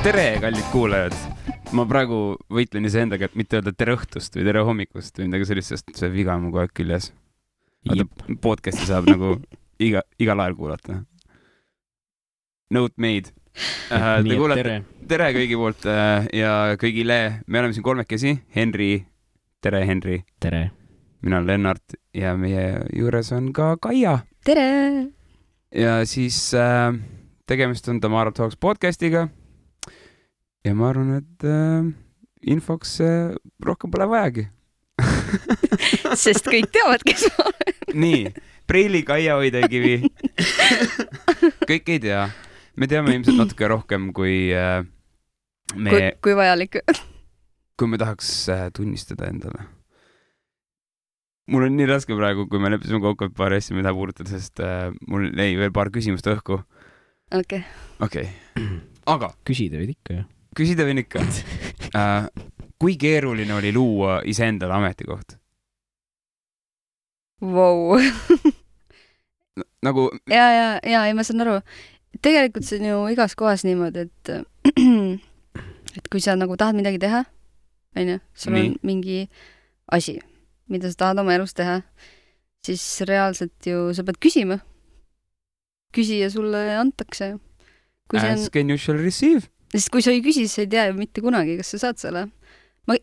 Tere, kallid kuulajad! Ma praegu võitlen iseendaga, et mitte öelda tere õhtust või tere hommikust või midagi sellist, sest see viga on mu kogu aeg küljes. Podcasti saab nagu igal ajal kuulata. Note made. Tere kõigi poolt ja kõigile. Me oleme siin kolmekesi. Henri. Tere, Henri. Tere. Mina olen Lennart ja meie juures on ka Kaia. Tere! Ja siis tegemist on Tamara Talks podcastiga. Ja ma arvan, et infoks rohkem pole vajagi. Sest kõik teavad, kes ma olen. Nii, Preili, Kaia, Oidekivi. Kõik ei tea. Me teame ilmselt natuke rohkem, kui kui vajalik. Kui me tahaks tunnistada endale. Mul on nii raske praegu, kui me leppisime kokku, et paar asja me taha puudutada, sest mul jäi veel paar küsimust õhku. Okei. Aga küsida võid ikka, jah? Küsida võin ikka. Kui keeruline oli luua iseendale ametikoht? Vau. Nagu... Ja, ma saan aru. Tegelikult see on ju igas kohas niimoodi, et kui sa nagu tahad midagi teha, sul on mingi asi, mida sa tahad oma elus teha, siis reaalselt ju sa pead küsima. Küsija sulle antakse. Ask and you shall receive. Sest kui sa ei küsi, siis sa ei tea ju mitte kunagi, kas sa saad selle. Ma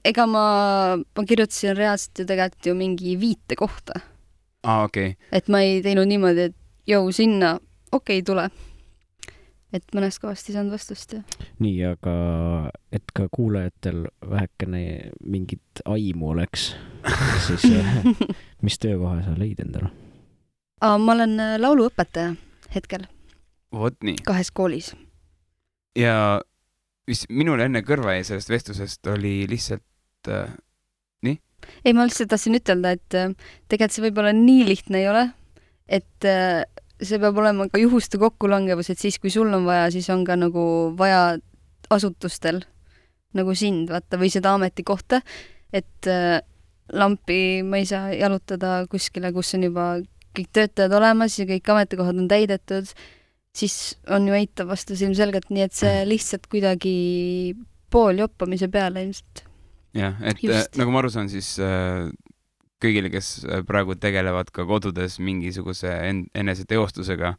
kirjutasin reaalselt ju tegelikult ju mingi viite kohta. Okei. Et ma ei teinud niimoodi, et sinna, tule. Et mõnest kohast ei saanud vastust. Ja. Nii, aga et ka kuulajatel vähekene mingit aimu oleks, siis mis töökoha sa leid endale? Ma olen lauluõpetaja hetkel. Vot nii. 2 koolis. Ja minul enne kõrva jäi sellest vestlusest oli lihtsalt nii? Ei, ma lihtsalt tahtsin ütelda, et tegelikult see võib-olla nii lihtne ei ole, et see peab olema ka juhuste kokkulangevus, et siis kui sul on vaja, siis on ka nagu vaja asutustel nagu sind, vaata, või seda ametikohta, et lampi ma ei saa jalutada kuskile, kus on juba kõik töötajad olemas ja kõik ametikohad on täidetud, siis on ju eitav vastus ilmselgelt, nii et see lihtsalt kuidagi pool joppamise peale ilmselt. Jah, et just. Nagu ma aru saan, siis kõigile, kes praegu tegelevad ka kodudes mingisuguse eneseteostusega,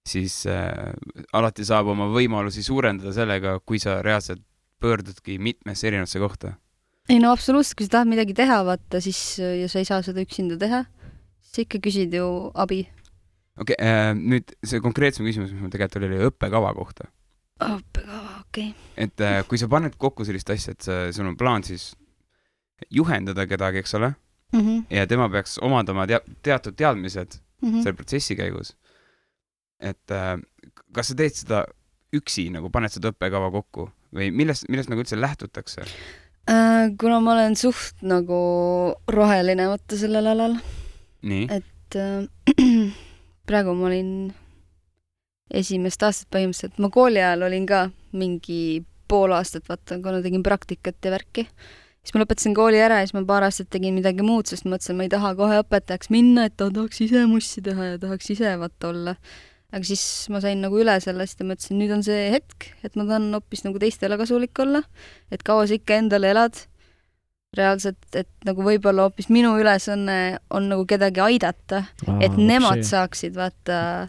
siis alati saab oma võimalusi suurendada sellega, kui sa reaalselt pöördudki mitmesse erinevasse kohta. Ei, no absoluutselt, kui sa tahad midagi teha, vaata, siis ja sa ei saa seda üksinda teha, siis ikka küsid ju abi. Okei, nüüd see konkreetsem küsimus, mis mul tegelikult oli õppekava kohta. Õppekava, okei. Et kui sa paned kokku sellist asja, et sul on plaan siis juhendada kedagi, eks ole, ja tema peaks omandama teatud teadmised selle protsessi käigus. Et kas sa teed seda üksi, nagu paned seda õppekava kokku või millest nagu üldse lähtutakse? Kuna ma olen suht nagu roheline võtta sellel alal. Nii? Et praegu ma olin esimest aastat põhimõtteliselt. Ma kooli ajal olin ka mingi pool aastat, vaata, kuna tegin praktikat ja värki. Siis ma lõpetasin kooli ära ja siis ma paar aastat tegin midagi muud, sest mõtlesin, ma ei taha kohe õpetajaks minna, et tahaks ise mussi teha ja tahaks ise vaata olla. Aga siis ma sain nagu üle sellest ja mõtlesin, nüüd on see hetk, et ma tahan hoopis nagu teistele kasulik olla, et kaua sa ikka endale elad. Reaalselt, et nagu võib-olla hoopis minu ülesanne on nagu kedagi aidata, et nemad saaksid vaata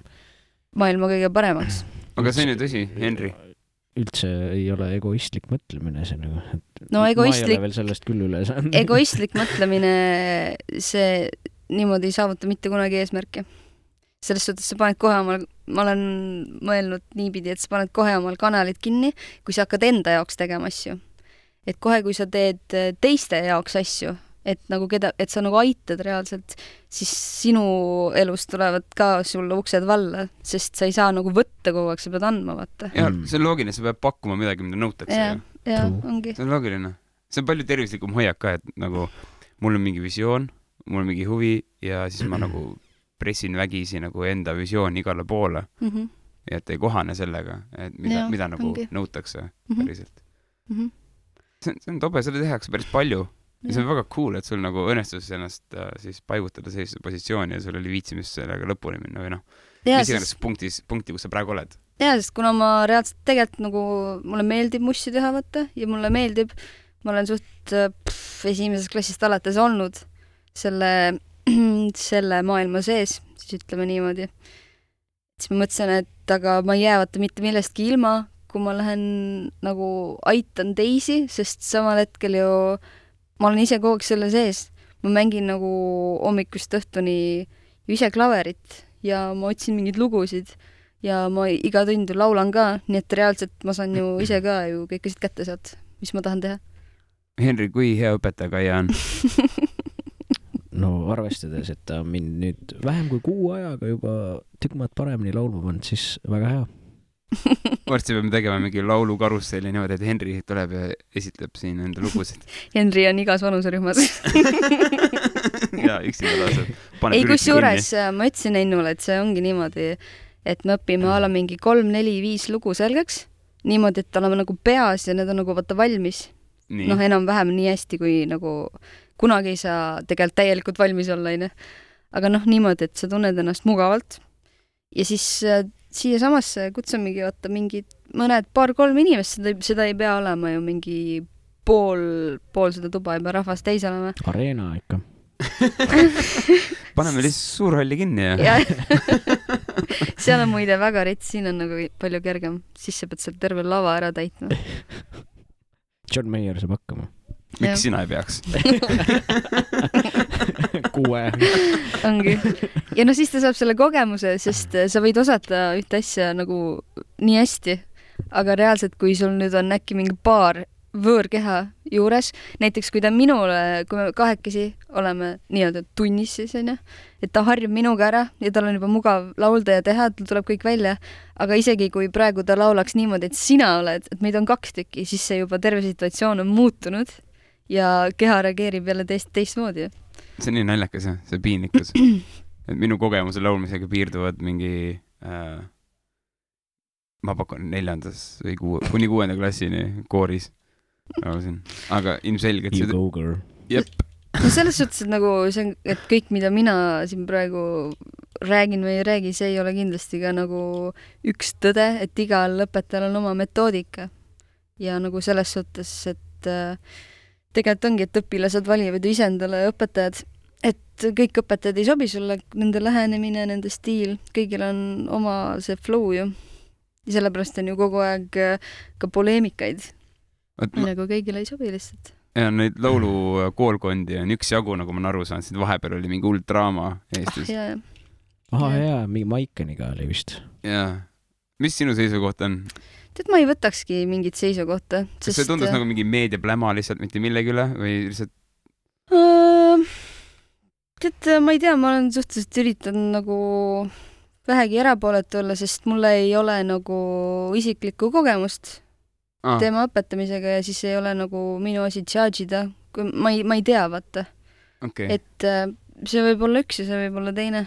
maailma kõige paremaks. Aga see on ju tõsi, Henri? Üldse ei ole egoistlik mõtlemine see nagu. No egoistlik... Ma ei ole veel sellest küll üle saanud. Egoistlik mõtlemine, see niimoodi ei saavuta mitte kunagi eesmärki. Selles suhtes sa paned kohe omal, ma olen mõelnud niipidi, et sa paned kohe omal kanalid kinni, kui sa hakkad enda jaoks tegema asju. Et kohe, kui sa teed teiste jaoks asju, et sa nagu aitad reaalselt, siis sinu elust tulevad ka sulle uksed valla, sest sa ei saa nagu võtta kogu aeg, sa pead andma, vaata. Ja, see on loogiline, sa pead pakkuma midagi, mida nõutakse. Ja, ongi. See on loogiline. See on palju tervislikum hoiak ka, et nagu mul on mingi visioon, mul on mingi huvi ja siis ma nagu pressin vägisi nagu enda visioon igale poole. Ja et ei kohane sellega, et mida nagu nõutakse päriselt. See on tobe, selle tehakse päris palju. Ja see on väga cool, et sul nagu õnnestus ennast siis paigutada sellise positsiooni ja sul oli viitsimis sellega lõpuni minna või noh. Mis iganes punkti, kus sa praegu oled. jaa, sest kuna ma reaalselt tegelikult nagu, mulle meeldib mussi teha, vaata, ja mulle meeldib, ma olen suht esimesest klassist alates olnud selle maailma sees, siis ütleme niimoodi. Siis ma mõtlesin, et aga ma ei jää vaata mitte millestki ilma, kui ma lähen nagu aitan teisi, sest samal hetkel ju ma olen ise kogu aeg selle sees. Ma mängin nagu hommikust õhtuni ise klaverit ja ma otsin mingeid lugusid ja ma iga tund ju laulan ka, nii et reaalselt ma saan ju ise ka ju kõik asjad kätte sealt, mis ma tahan teha. Henri, kui hea õpetaja Kaia on? No arvestades, et ta mind nüüd vähem kui 6 ajaga juba tükk maad paremini laulma pannud, siis väga hea. Varsti peame tegema mingi laulukarusselli niimoodi, et Henri tuleb ja esitleb siin enda lugusid. Henri on igas vanuserühmas. Ja üksinda laaseb. Ei, kus juures ma ütlesin Ennule, et see ongi niimoodi, et me õpime ala mingi 3, 4, 5 lugu selgeks, niimoodi, et oleme nagu peas ja need on nagu vaata valmis. Nii. Noh, enam-vähem nii hästi, kui nagu kunagi ei saa tegelikult täielikult valmis olla, ne? Aga noh, niimoodi, et sa tunned ennast mugavalt. Ja siis siia samasse kutsamegi vaata mingid mõned 2-3 inimest, seda ei pea olema ju mingi pool seda tuba, ei pea rahvast täis olema. Areena ikka. Paneme lihtsalt suurhalli kinni ja. Seal on muide väga rets, siin on nagu palju kergem. Siis sa pead seal terve lava ära täitma. John Mayer saab hakkama. Miks sina ei peaks? 6. Ongi. Ja no siis ta saab selle kogemuse, sest sa võid osata ühte asja nagu nii hästi, aga reaalselt, kui sul nüüd on äkki mingi paar võõrkeha juures, näiteks kui ta minule, kui me 2 oleme nii-öelda tunnis siis, et ta harjub minuga ära ja tal on juba mugav laulda ja teha, tal tuleb kõik välja, aga isegi kui praegu ta laulaks niimoodi, et sina oled, et meid on 2 tükki, siis see juba terve situatsioon on muutunud ja keha reageerib jälle teistmoodi. See on nii naljakas, see piinlikkus. Et minu kogemuse laulmisega piirduvad mingi ma pakun 4. või kuni 6. klassini kooris. Aga ilmselgelt You go girl. Jep. No selles suhtes, et nagu see on, et kõik, mida mina siin praegu räägin või ei räägi, see ei ole kindlasti ka nagu üks tõde, et igal õpetajal on oma metoodika. Ja nagu selles suhtes, et tegelikult ongi, et õpilased valivad ise endale õpetajad, et kõik õpetajad ei sobi sulle, nende lähenemine, nende stiil, kõigil on oma see flow ju. Ja sellepärast on ju kogu aeg ka poleemikaid. Nagu kõigile ei sobi lihtsalt. Ja neid laulu koolkondi on üks jagu, nagu ma aru saan, siin vahepeal oli mingi hull draama Eestis. Jaa, mingi Maikeniga oli vist. Jaa. Mis sinu seisukoht on? Tead, ma ei võtakski mingit seisukohta. Kas see tundus nagu mingi meediapläma lihtsalt mitte millegi üle või lihtsalt? Tead, ma ei tea, ma olen suhteliselt üritanud nagu vähegi erapooletu olla, sest mulle ei ole nagu isiklikku kogemust teema õpetamisega ja siis ei ole nagu minu asi charge'ida, kui ma ei tea, vaata. Okay. Et see võib olla üks ja see võib olla teine.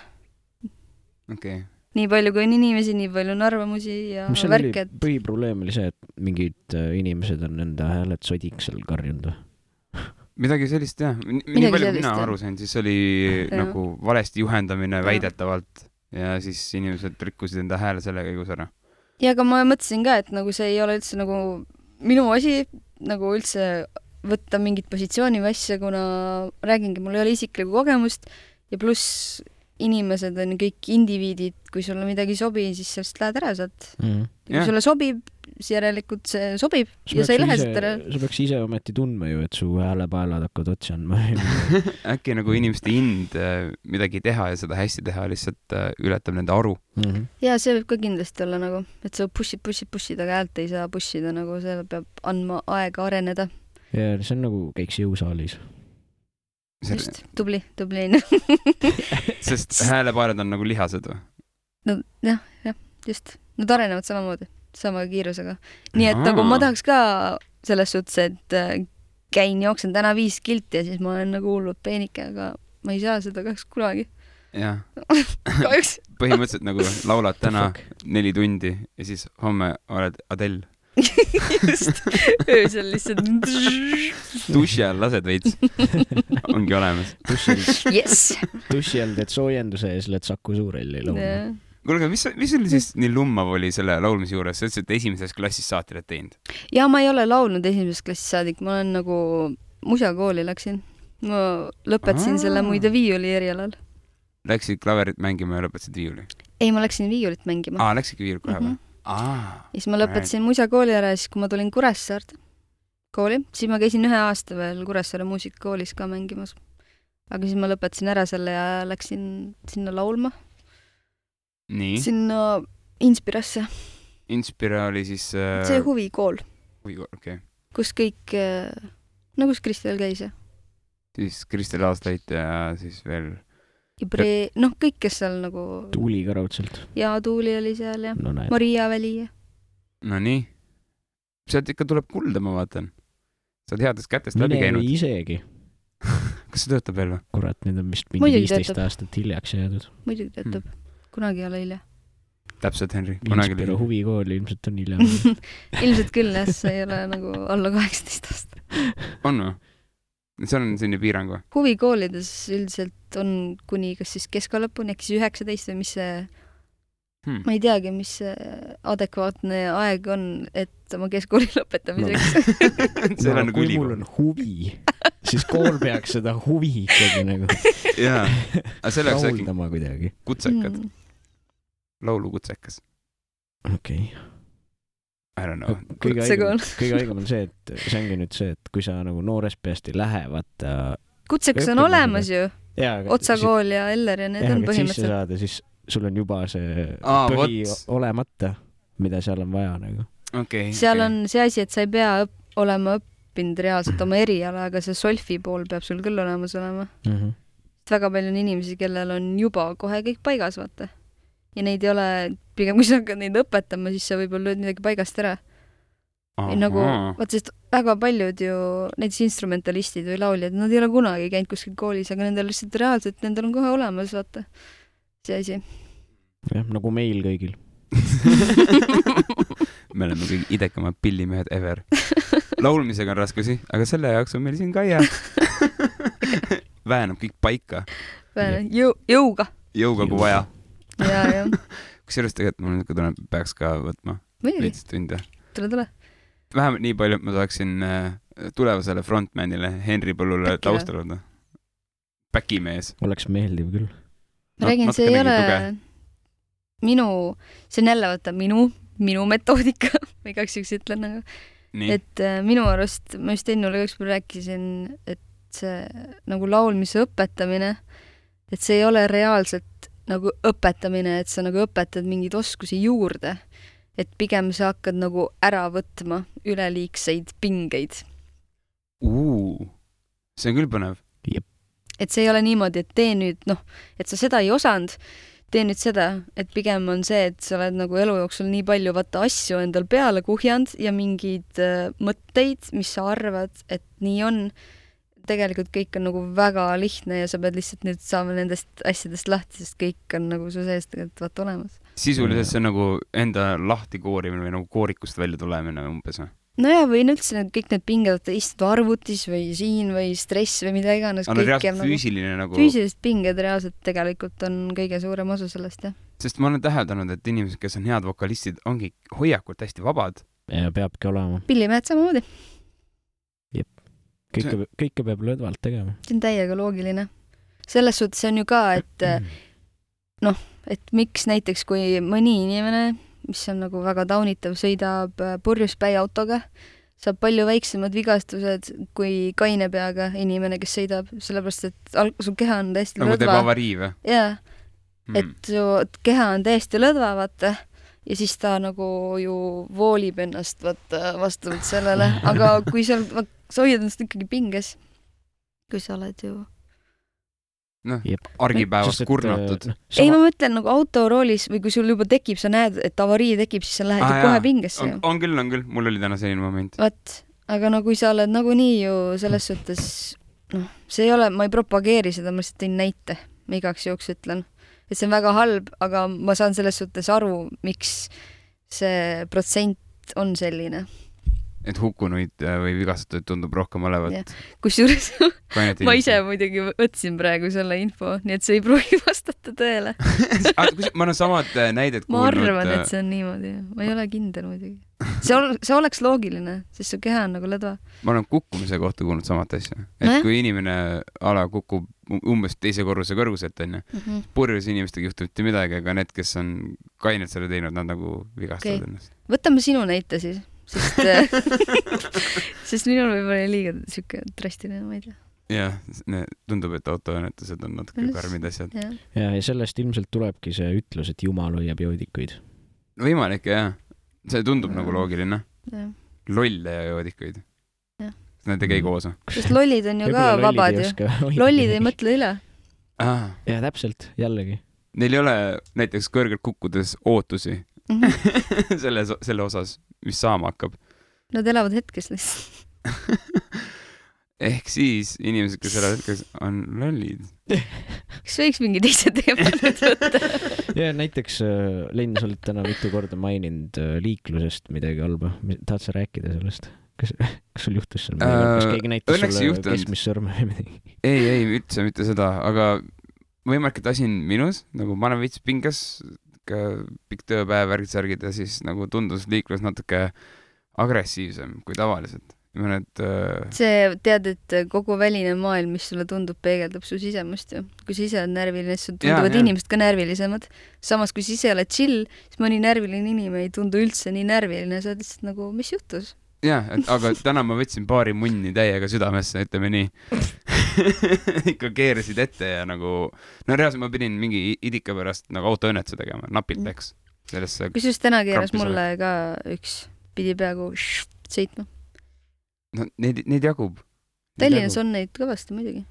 Okay. Nii palju kui on inimesi, nii palju on arvamusi ja värked. Põhiprobleem oli see, et mingid inimesed on enda hääled sodiks seal karjunud. Midagi sellist, jah. Nii palju mina aru sain, siis oli nagu valesti juhendamine väidetavalt ja siis inimesed rikkusid enda hääle selle käigus ära. Ja aga ma mõtlesin ka, et nagu see ei ole üldse nagu minu asi nagu üldse võtta mingit positsiooni või asja, kuna räägingi, mul ei ole isiklikku kogemust ja pluss inimesed on kõik indiviidid, kui sulle midagi ei sobi, siis sellest lähed ära sealt. Kui sulle sobib, siis järelikult see sobib ja sa ei lähe sealt ära. Sa peaks ise ometi tundma ju, et su häälepaelad hakkavad otsi andma. Äkki nagu inimeste ind midagi teha ja seda hästi teha lihtsalt ületab nende aru. Ja see võib ka kindlasti olla nagu, et sa pushid, aga häält ei saa pushida, nagu see peab andma aega areneda. Ja see on nagu käiks jõusaalis. Just, tubli. Sest häälepaelad on nagu lihased või? No jah, just. Nad arenevad samamoodi, sama kiirusega. Nii et nagu ma tahaks ka selles suhtes, et jooksen täna 5 kilti ja siis ma olen nagu hullud peenike, aga ma ei saa seda kahjuks kunagi. Jah. Kahjuks. Põhimõtteliselt nagu laulad täna 4 tundi ja siis homme oled Adele. Just, öösel lihtsalt duši all lased veits. Ongi olemas. Yes. Duši all teed soojenduse ja siis lähed Saku Suurelli laulma. kuulge, mis oli siis nii lummav oli selle laulmise juures? Sa ütlesid, et esimeses klassis saati oled teinud. Ja ma ei ole laulnud esimesest klassist saadik, ma olen nagu musakooli läksin. Ma lõpetasin selle muide viiuli erialal. Läksid klaverit mängima ja lõpetasid viiuli? Ei, ma läksin viiulit mängima. Läksidki viiulit kohe või? Siis ma lõpetasin musakooli ära ja siis, kui ma tulin Kuressaarde kooli, siis ma käisin 1 aasta veel Kuressaare muusikakoolis ka mängimas. Aga siis ma lõpetasin ära selle ja läksin sinna laulma. Nii? Sinna Inspirasse. Inspira oli siis... See huvikool. Huvikool, okei. Kus kõik... kus Kristel käis, jah? Siis Kristel Aastait ja siis veel... kõik, kes seal nagu... Tuuli ka raudselt. Ja Tuuli oli seal ja no, Maria Väli. No nii. Sealt ikka tuleb kulda, ma vaatan. Sa oled headest kätest läbi käinud. Mine isegi. Kas see töötab veel või? Kurat, nüüd on vist mingi 15 aastat hiljaks jäädud. Muidugi töötab. Kunagi ei ole hilja. Täpselt, Henri. Inspira huvikool ilmselt on hilja. Ilmselt küll, jah, see ei ole nagu alla 18 aasta. On või? See on selline piirang või? Huvikoolides üldiselt on kuni kas siis keskalõpuni, äkki siis 19 või mis see... Ma ei teagi, mis see adekvaatne aeg on, et oma keskkooli lõpetamiseks. Kui mul on huvi, siis kool peaks seda huvi ikkagi nagu rahuldama kuidagi. Kutsekad. Laulukutsekas. Okei. I don't know. Kõige haigem on see, et see ongi nüüd see, et kui sa nagu noorest peast ei lähe, vaata... Kutsekas on olemas ju. Otsakool ja Eller ja need on põhimõtteliselt. Siis sul on juba see põhi olemata, mida seal on vaja nagu. Seal on see asi, et sa ei pea olema õppinud reaalselt oma eriala, aga see solfi pool peab sul küll olemas olema. Väga palju on inimesi, kellel on juba kohe kõik paigas, vaata. Ja neid ei ole, pigem kui sa hakkad neid õpetama, siis sa võib-olla lööd midagi paigast ära. Nagu, vaata, sest väga paljud ju, näiteks instrumentalistid või lauljad, nad ei ole kunagi käinud kuskil koolis, aga nendel lihtsalt reaalselt, nendel on kohe olemas, vaata. See asi. Jah, nagu meil kõigil. Me oleme kõige idekamad pillimehed ever. Laulmisega on raskusi, aga selle jaoks on meil siin Kaia. Väänab kõik paika. Jõuga. Jõuga kui vaja. Ja. Kusjuures tegelikult mul nüüd peaks ka võtma. Veits tunde. Tule. Vähemalt nii palju, et ma saaksin tulevasele frontmanile Henri Põllule taustalada. Päkimees. Oleks meeldiv küll. Ma räägin, see ei ole see on jälle võtta minu metoodika, ma igaks üks ütlen nagu. Et minu arust, ma just ennule ükspäev rääkisin, et see nagu laulmise õpetamine, et see ei ole reaalselt nagu õpetamine, et sa nagu õpetad mingeid oskusi juurde, et pigem sa hakkad nagu ära võtma üleliigseid pingeid. See on küll põnev. Et see ei ole niimoodi, et tee nüüd, et sa seda ei osanud, tee nüüd seda, et pigem on see, et sa oled nagu elu jooksul nii palju vaata asju endal peale kuhjanud ja mingeid mõtteid, mis sa arvad, et nii on. Tegelikult kõik on nagu väga lihtne ja sa pead lihtsalt nüüd saama nendest asjadest lahti, sest kõik on nagu su sees tegelikult vaata olemas. Sisuliselt see on nagu enda lahti koorimine või nagu koorikust välja tulemine umbes või? No ja või üldse kõik need pinged istud arvutis või siin või stress või mida iganes. On reaalselt füüsiline nagu... Füüsilised pinged reaalselt tegelikult on kõige suurem osa sellest, jah. Sest ma olen täheldanud, et inimesed, kes on head vokalistid, ongi hoiakult hästi vabad. Ja peabki olema. Pillimehed samamoodi. Jep. Kõike peab lõdvalt tegema. See on täiega loogiline. Selles suhtes on ju ka, et et miks näiteks kui mõni inimene mis on nagu väga taunitav, sõidab purjuspäi autoga, saab palju väiksemad vigastused kui kaine peaga inimene, kes sõidab, sellepärast, et su keha on täiesti lõdva. Nagu teeb avarii või? Jaa, et su keha on täiesti lõdva, vaata, ja siis ta nagu ju voolib ennast vastavalt sellele, aga kui sa hoiad ennast ikkagi pinges, kui sa oled ju argipäevast kurnatud. Ei, ma mõtlen nagu autoroolis või kui sul juba tekib, sa näed, et avarii tekib, siis sa lähed ju kohe pingesse. On küll. Mul oli täna selline moment. Aga no kui sa oled nagunii ju selles suhtes, see ei ole, ma ei propageeri seda, ma lihtsalt tõin näite, ma igaks juhuks ütlen. Et see on väga halb, aga ma saan selles suhtes aru, miks see protsent on selline. et hukkunuid või vigastatuid tundub rohkem olevat. Kusjuures ma ise muidugi võtsin praegu selle info, nii et see ei pruugi vastata tõele. Ma olen samad näidet kuulnud. Ma arvan, et see on niimoodi. Ma ei ole kindel muidugi. See oleks loogiline, sest su keha on nagu ledva. Ma olen kukkumise kohta kuulnud samat asja. Et kui inimene kukub umbes teise korruse kõrguselt, purjus inimestega juhtub mitte midagi, aga need, kes on kainelt selle teinud, nad nagu vigastavad ennast. Võtame sinu näite siis. Sest minul võib-olla liiga siuke drastiline, ma ei tea. Jah, tundub, et autoõnnetused on natuke karmid asjad. Ja sellest ilmselt tulebki see ütlus, et Jumal hoiab joodikuid. Võimalik, jah. See tundub nagu loogiline. Lolle ja joodikuid. Need ei käi koos. Sest lollid on ju ka vabad ju. Lollid ei mõtle üle. Ja täpselt, jällegi. Neil ei ole näiteks kõrgelt kukkudes ootusi selle osas, mis saama hakkab. Nad elavad hetkes lihtsalt. Ehk siis inimesed, kes elavad hetkes, on lollid. Kas võiks mingi teise teema nüüd võtta? Ja näiteks, Lenn, sa oled täna mitu korda maininud liiklusest midagi halba. Tahad sa rääkida sellest? Kas sul juhtus seal midagi? Kas keegi näitas sulle keskmist sõrme või midagi? Ei, üldse mitte seda, aga võimalik, et asi on minus, nagu ma olen veits pingas, pikk tööpäev, värgid ja siis nagu tundus liiklus natuke agressiivsem kui tavaliselt. See tead, et kogu väline maailm, mis sulle tundub, peegeldab su sisemust ju. Kui sa ise oled närviline, siis tunduvad inimesed ka närvilisemad. Samas, kui sa ise oled chill, siis mõni närviline inimene ei tundu üldse nii närviline. Sa oled lihtsalt nagu, mis juhtus? Jah, aga täna ma võtsin paari munni täiega südamesse, ütleme nii. Ikka keerasid ette ja nagu... No reaalselt ma pidin mingi idika pärast nagu autoõnnetuse tegema, napilt läks. Kusjuures täna keeras mulle ka üks, pidi peaaegu sõitma. No neid jagub. Tallinnas on neid kõvasti muidugi.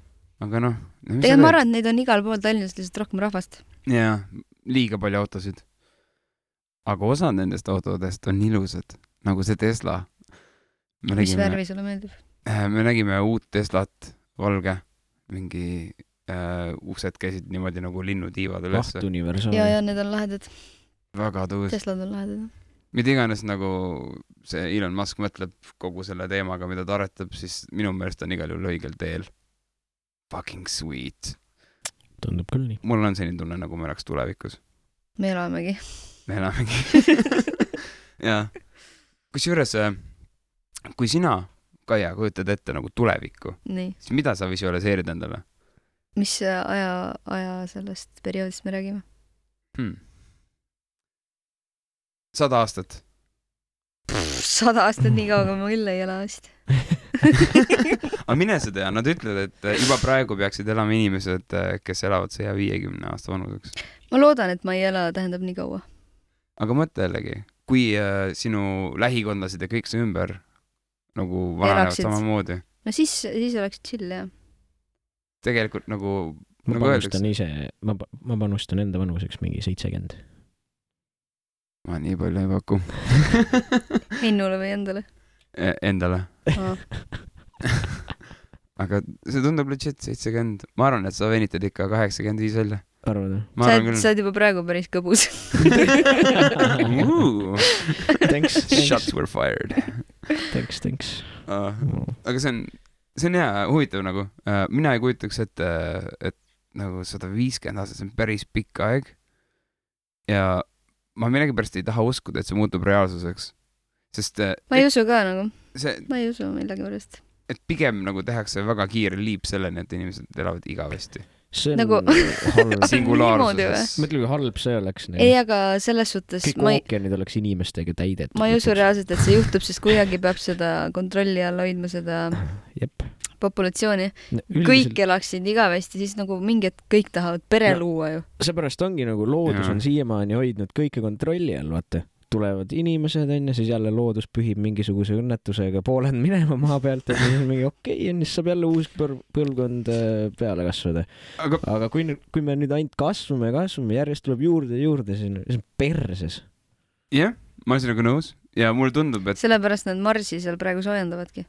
Aga noh... Tegelikult ma arvan, et neid on igal pool Tallinnas lihtsalt rohkem rahvast. Jaa, liiga palju autosid. Aga osa nendest autodest on ilusad, nagu see Tesla. Mis värvi sulle meeldib? Me nägime uut Teslat, valge, mingi uksed käisid niimoodi nagu linnutiivad üles. Universaal. Ja need on lahedad. Väga tuus. Teslad on lahedad. Mida iganes nagu see Elon Musk mõtleb kogu selle teemaga, mida ta aretab, siis minu meelest on igal juhul õigel teel. Fucking sweet. Tundub küll nii. Mul on selline tunne, nagu me oleks tulevikus. Me elamegi. Ja. Kusjuures kui sina, Kaia, kujutad ette nagu tulevikku, siis mida sa visualiseerid endale? Mis aja sellest perioodist me räägime? 100 aastat. 100 aastat nii kauga ma küll ei ela vist. Aga mine sa tea, nad ütlevad, et juba praegu peaksid elama inimesed, kes elavad 150 aasta vanuseks. Ma loodan, et ma ei ela tähendab nii kaua. Aga mõtle jällegi, kui sinu lähikondlased ja kõik see ümber nagu vananevad samamoodi. No siis oleks chill, jah. Tegelikult nagu... Ma panustan ise, ma panustan enda vanuseks mingi 70. Ma nii palju ei paku. Hennule või endale? Endale. Aga see tundub legit 70. Ma arvan, et sa venitad ikka 85 välja. Arvad? Sa oled juba praegu päris kõbus. Thanks. Shots were fired. Thanks. Aga see on hea, huvitav nagu. Mina ei kujutaks, et nagu 150 aastat, see on päris pikk aeg. Ja ma millegipärast ei taha uskuda, et see muutub reaalsuseks. Sest... Ma ei usu ka nagu. Ma ei usu millegipärast. Et pigem nagu tehakse väga kiire liip selleni, et inimesed elavad igavesti. See on nagu... halb. Singulaarsuses. Mõtle, kui halb see oleks. Ei, aga selles suhtes... Kõik ookeanid oleks inimestega täidet. Ma ei usu reaalselt, et see juhtub, sest kuidagi peab seda kontrolli all hoidma seda populatsiooni. Kõik elaksid igavesti, siis nagu mingid kõik tahavad pere luua ju. Seepärast ongi nagu loodus on siiamaani hoidnud kõike kontrolli all, vaata. Tulevad inimesed, siis jälle loodus pühib mingisuguse õnnetusega pooled minema maa pealt, et siis on mingi okei, siis saab jälle uus põlvkond peale kasvada. Aga kui me nüüd ainult kasvame, järjest tuleb juurde, siis on perses. Jah, ma olen sinuga nõus ja mulle tundub, et... Sellepärast nad Marsi seal praegu soojendavadki.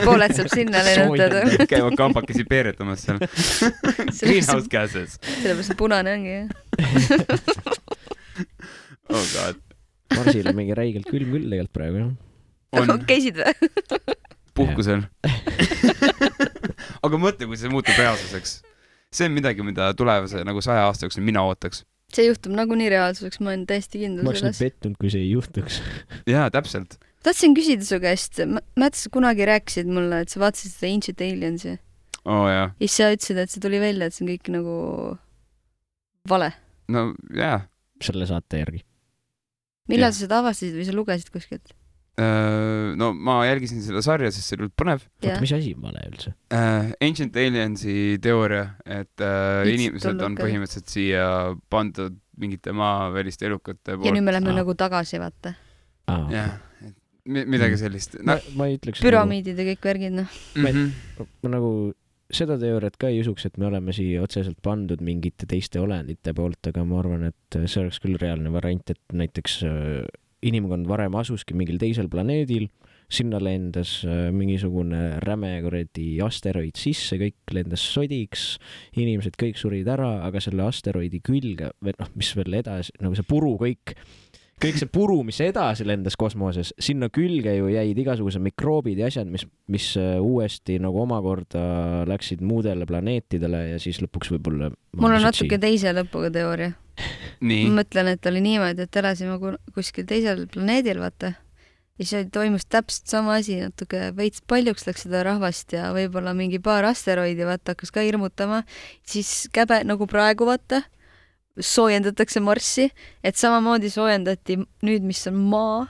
Pooled saab sinna lennutada. Käivad kambakesi peeretamas seal. Greenhouse gases. Sellepärast punane ongi, jah. Oh god. Marsil on mingi räigelt külm küll tegelikult praegu, jah. Käisid või? Puhkusel. Aga mõtle, kui see muutub reaalsuseks. See on midagi, mida tulevase nagu 100 aasta jooksul mina ootaks. See juhtub nagunii reaalsuseks, ma olen täiesti kindel ma oleks pettunud, kui see ei juhtuks. Jaa, täpselt. Tahtsin küsida su käest, Märt, sa kunagi rääkisid mulle, et sa vaatasid seda Ancient Aliensi. Jaa. Ja siis sa ütlesid, et see tuli välja, et see on kõik nagu vale. No jaa. Selle saate järgi. Millal sa seda avastasid või sa lugesid kuskilt? No ma jälgisin seda sarja, sest see oli põnev. Oota, mis asi vale üldse? Ancient Aliensi teooria, et inimesed on põhimõtteliselt siia pandud mingite maaväliste elukate poolt. Ja nüüd me lähme nagu tagasi, vaata. Jah, midagi sellist. Ma ei ütleks püramiidid ja kõik värgid, noh. Ma nagu seda teooriat ka ei usuks, et me oleme siia otseselt pandud mingite teiste olendite poolt, aga ma arvan, et see oleks küll reaalne variant, et näiteks inimkond varem asuski mingil teisel planeedil, sinna lendas mingisugune räme kuradi asteroid sisse, kõik lendas sodiks, inimesed kõik surid ära, aga selle asteroidi külge, mis veel edasi, nagu see puru kõik see puru, mis edasi lendas kosmoses, sinna külge ju jäid igasugused mikroobid ja asjad, mis uuesti nagu omakorda läksid muudele planeetidele ja siis lõpuks võib-olla... Mul on natuke teise lõpuga teooria. Nii. Ma mõtlen, et oli niimoodi, et elasime kuskil teisel planeedil, vaata. Ja siis toimus täpselt sama asi, natuke veits paljuks läks seda rahvast ja võib-olla mingi paar asteroidi, vaata, hakkas ka hirmutama. Siis käbe nagu praegu, vaata, soojendatakse Marssi, et samamoodi soojendati nüüd, mis on maa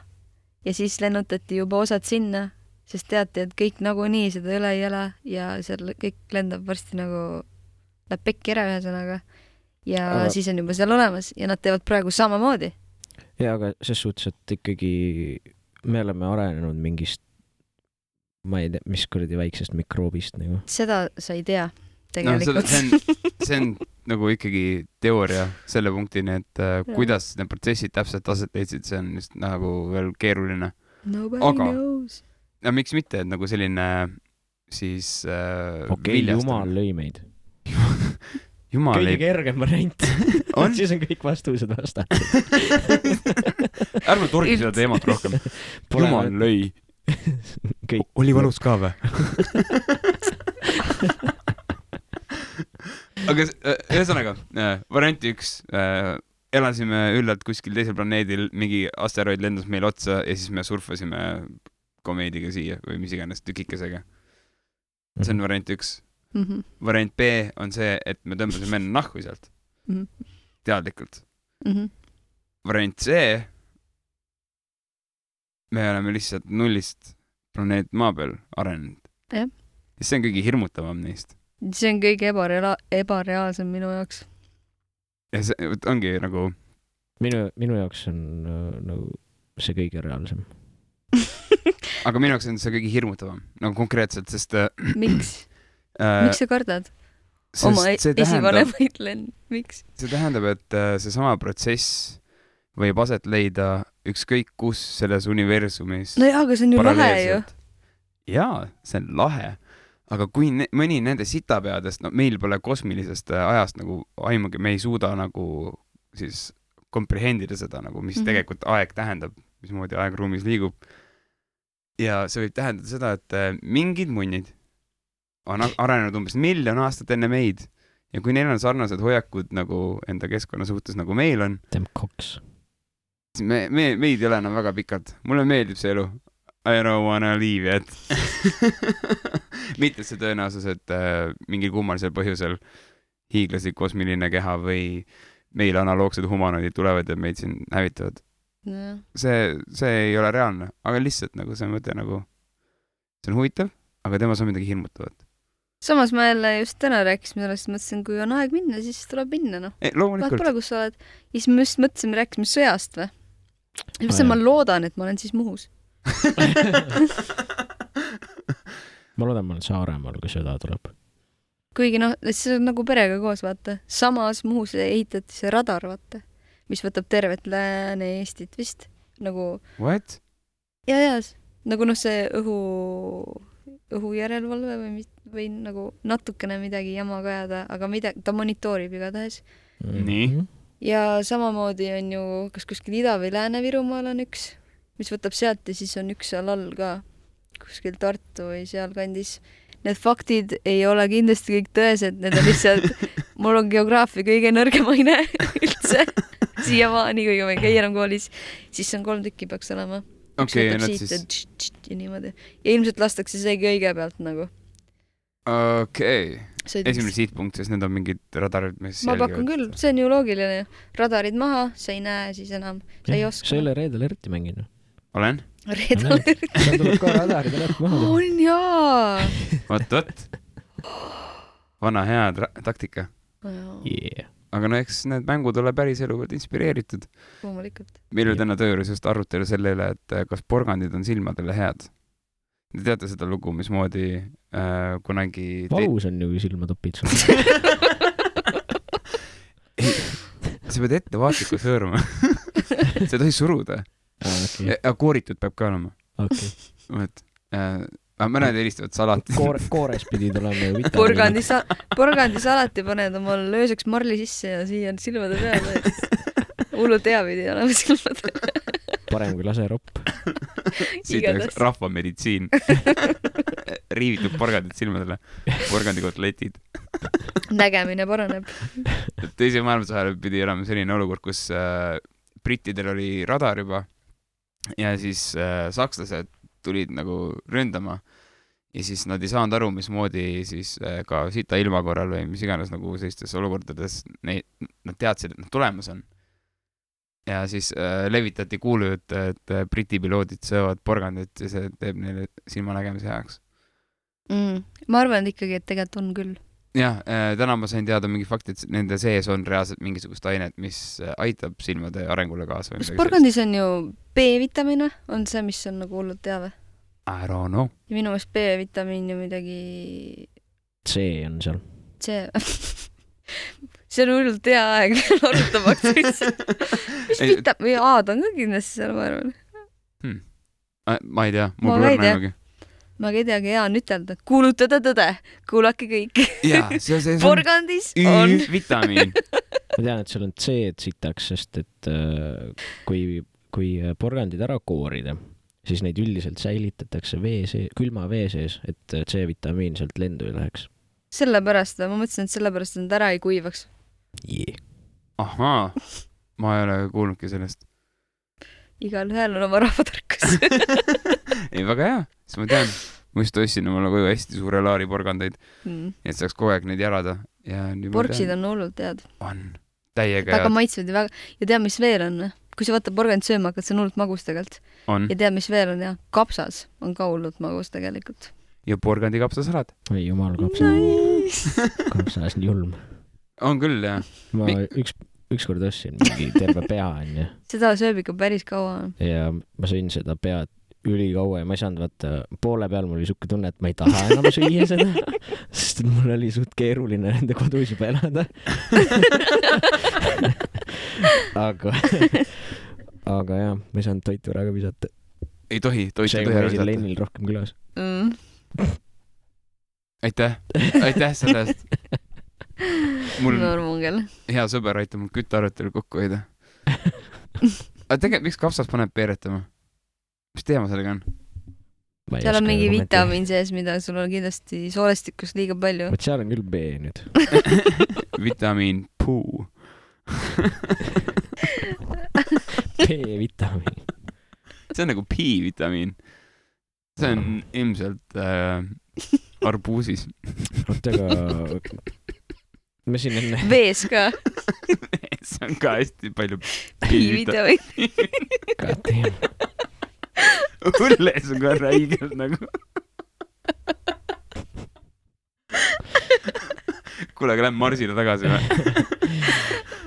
ja siis lennutati juba osad sinna, sest teati, et kõik nagunii seda üle ei ela ja seal kõik lendab varsti nagu läheb pekki ära ühesõnaga ja siis on juba seal olemas ja nad teevad praegu samamoodi. Ja, aga ses suhtes, et ikkagi me oleme arenenud mingist ma ei tea, mis kuradi väiksest mikroobist nagu. Seda sa ei tea tegelikult. No, see on nagu ikkagi teooria selle punktini, et kuidas need protsessid täpselt aset leidsid, see on just nagu veel keeruline. Nobody knows. Ja miks mitte, et nagu selline siis Jumal lõi meid. Kõige kergem variant. Siis on kõik vastused vastatud. Ärme torgi seda teemat rohkem. Jumal lõi. Oli valus ka või? Aga ühesõnaga, variant 1, elasime üllalt kuskil teisel planeedil, mingi asteroid lendas meil otsa ja siis me surfasime komeediga siia või mis iganes tükikesega. See on variant 1. Variant B on see, et me tõmbasime enne nahku sealt. Teadlikult. Variant C, me oleme lihtsalt nullist planeet maa peal arenenud. Ja see on kõige hirmutavam neist. See on kõige ebareaalsem minu jaoks. Ja see ongi nagu... Minu jaoks on nagu see kõige reaalsem. Aga minu jaoks on see kõige hirmutavam. Nagu konkreetselt, sest... Miks? Miks sa kardad? Oma esivanemaid miks? See tähendab, et see sama protsess võib aset leida ükskõik kus selles universumis. No jaa, aga see on ju lahe ju. Jaa, see on lahe. Aga kui mõni nende sitapeadest, no meil pole kosmilisest ajast nagu aimugi, me ei suuda nagu siis komprehendida seda, nagu, mis tegelikult aeg tähendab, mismoodi aeg ruumis liigub. Ja see võib tähendada seda, et mingid munnid on arenenud umbes 1 000 000 aastat enne meid ja kui neil on sarnased hoiakud nagu enda keskkonna suhtes, nagu meil on, siis meid ei ole enam väga pikalt. Mulle meeldib see elu. I don't wanna leave yet. Mitte see tõenäosus, et mingil kummalisel põhjusel hiiglaslik kosmiline keha või meil analoogsed humanoidid tulevad ja meid siin hävitavad. No. See ei ole reaalne, aga lihtsalt nagu see mõte nagu, see on huvitav, aga temas on midagi hirmutavat. Samas ma jälle just täna rääkisime sellest, mõtlesin, kui on aeg minna, siis tuleb minna, noh. Loomulikult. Vaat pole, kus sa oled. Ja siis me just mõtlesime, rääkisime sõjast või? Ja ma loodan, et ma olen siis Muhus. Ma loodan, ma olen Saaremaal, kui sõda tuleb. Kuigi noh, see on nagu perega koos, vaata. Samas Muhus ehitati see radar, vaata, mis võtab tervet Lääne-Eestit vist. Nagu... What? Ja, nagu noh, see õhujärelevalve või nagu natukene midagi jama kajada, aga ta monitoorib igatahes. Nii. Ja samamoodi on ju, kas kuskil Ida- või Lääne-Virumaal on üks, mis võtab sealt ja siis on üks seal all ka, kuskil Tartu või sealkandis. Need faktid ei ole kindlasti kõik tõesed, need on lihtsalt, mul on geograafia kõige nõrgemaine üldse siiamaani, kui ma ei käi enam koolis, siis on 3 tükki peaks olema. Okei, ja niimoodi. Ja ilmselt lastakse seegi õige pealt nagu. Okei. Esimene sihtpunkt, sest need on mingid radarid, mis ma pakun küll, see on ju loogiline. Radarid maha, sa ei näe siis enam, sa ei oska. Sa ei ole Red Alerti mänginud? Red Olen? Alerti. Seal tuleb ka radarid alert maha. On jaa! Võt. Vana hea taktika. Yeah. Aga no eks need mängud ole päris eluvõrd inspireeritud. Loomulikult. Meil oli täna tööjuures just arutelu selle üle, et kas porgandid on silmadele head. Te teate seda lugu, mismoodi kunagi... Valus on ju silmatopid sul. Sa pead ettevaatlikult hõõruma. Sa ei tohi suruda. Okay. Ja kooritud peab ka olema. Okay. Mõned helistavad salati. Koores pidid olema ju vitamiini. Porgandi salati paned omal lööseks marli sisse ja siia on silmade peale. Hullult hea pidi olema silmade. Parem kui laseropp. Siit oleks rahvameditsiin. Riivitud porgandid silmadele. Porgandikotletid. Nägemine paraneb. Teise maailmasõjal pidi olema selline olukord, kus brittidel oli radar juba ja siis sakslased tulid nagu ründama ja siis nad ei saanud aru, mismoodi siis ka sita ilma korral või mis iganes nagu sellistes olukordades nad teadsid, et nad tulemas on. Ja siis levitati kuulujut, et briti piloodid söövad porgandit ja see teeb neile silmanägemise heaks. Ma arvan ikkagi, et tegelikult on küll. Jah, täna ma sain teada mingi fakti, et nende sees on reaalselt mingisugust ainet, mis aitab silmade arengule kaasa. Kas porgandis on ju B-vitamiin, on see, mis on nagu hullult teave? I don't know. Ja minu meelest B-vitamiin ja midagi... C on seal. C. See on hullult hea aeg arutamaks. Mis vitamiin? A-d on ka kindlasti seal, ma arvan. Ma ei tea, mul pole näinugi. Ma ei teagi, hea on ütelda. Kuulutada tõde. Kuulake kõik. Porgandis on vitamiin. Ma tean, et seal on C-d sitaks, sest et kui porgandid ära koorida, siis neid üldiselt säilitatakse külma vee sees, et C-vitamiin sealt lendu ei läheks. Sellepärast, ma mõtlesin, et sellepärast nad ära ei kuivaks. Yeah. Ahaa, ma ei ole kuulnudki sellest. Igal ühel on oma rahvatarkus. Ei, väga hea, siis ma tean. Ma just ostsin omale koju hästi suure laari porgandeid, et saaks kogu aeg neid jalada. Porksid on hullult head. On, täiega väga maitsvad ja väga... Ja tead, mis veel on? Kui sa võtta porgand sööma, hakkad see on hullult magus tegelikult. On. Ja tead, mis veel on? Ja kapsas on ka hullult magus tegelikult. Ja porgandi kapsasalad. Ei, jumal, kapsas on julm. On küll, jah. Ma ükskord ostsin mingi terve pea, onju. Seda sööb ikka päris kaua. Ja ma sõin seda pead ülikaua ja ma ei saanud vaata, poole peal mul oli suke tunne, et ma ei taha enam süüa seda, sest mul oli suht keeruline nende kodus juba elada. aga jah, ma ei saanud toitu ära ka visata. Ei tohi toitu ära visata. See Lennil rohkem külas. Aitäh selle eest. Mul hea sõber aitab mul küttearvetelu kokku hoida. Aga tegelikult, miks kapsas paneb peeretama? Mis teema sellega on? Seal on mingi vitamiin sees, mida sul on kindlasti soolestikus liiga palju. Võt seal on küll B nüüd. Vitamiin puu. B-vitamiin. See on nagu P-vitamiin. See on ilmselt arbuusis. Ootega... Me siin enne... Vees ka. Vees on ka hästi palju P-vitamiin. Kateem. Õlles on ka räigelt nagu. Kuule, aga lähen Marsile tagasi või?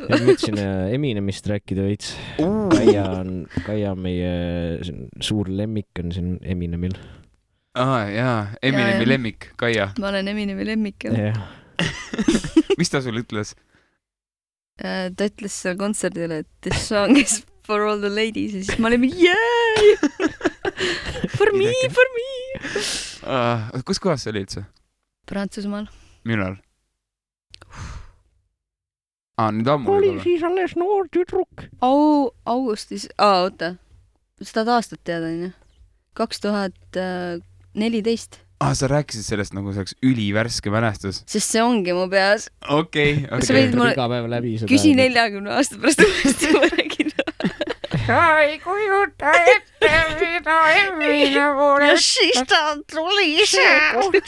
Ja mõtlesin Eminemist rääkida veits. Kaia meie suur lemmik on siin Eminemil. Jaa, Eminemi lemmik, Kaia. Ma olen Eminemi lemmik, jah. Mis ta sul ütles? Ta ütles seal kontserdil, et this song is for all the ladies ja siis ma olin yay! For me! Kus kohas see oli üldse? Prantsusmaal. Millal? Nüüd ammu oli siis alles noor tüdruk. Augustis. Oota. seda aastat teada, onju. 2014. Sa rääkisid sellest nagu see oleks ülivärske mälestus. Sest see ongi mu peas. Okei. Sa võid mulle iga päev läbi seda. Küsi 40 aasta pärast uuesti, ma räägin. Sa ei kujuta ette, mida emmine pole. Ja siis ta tuli see.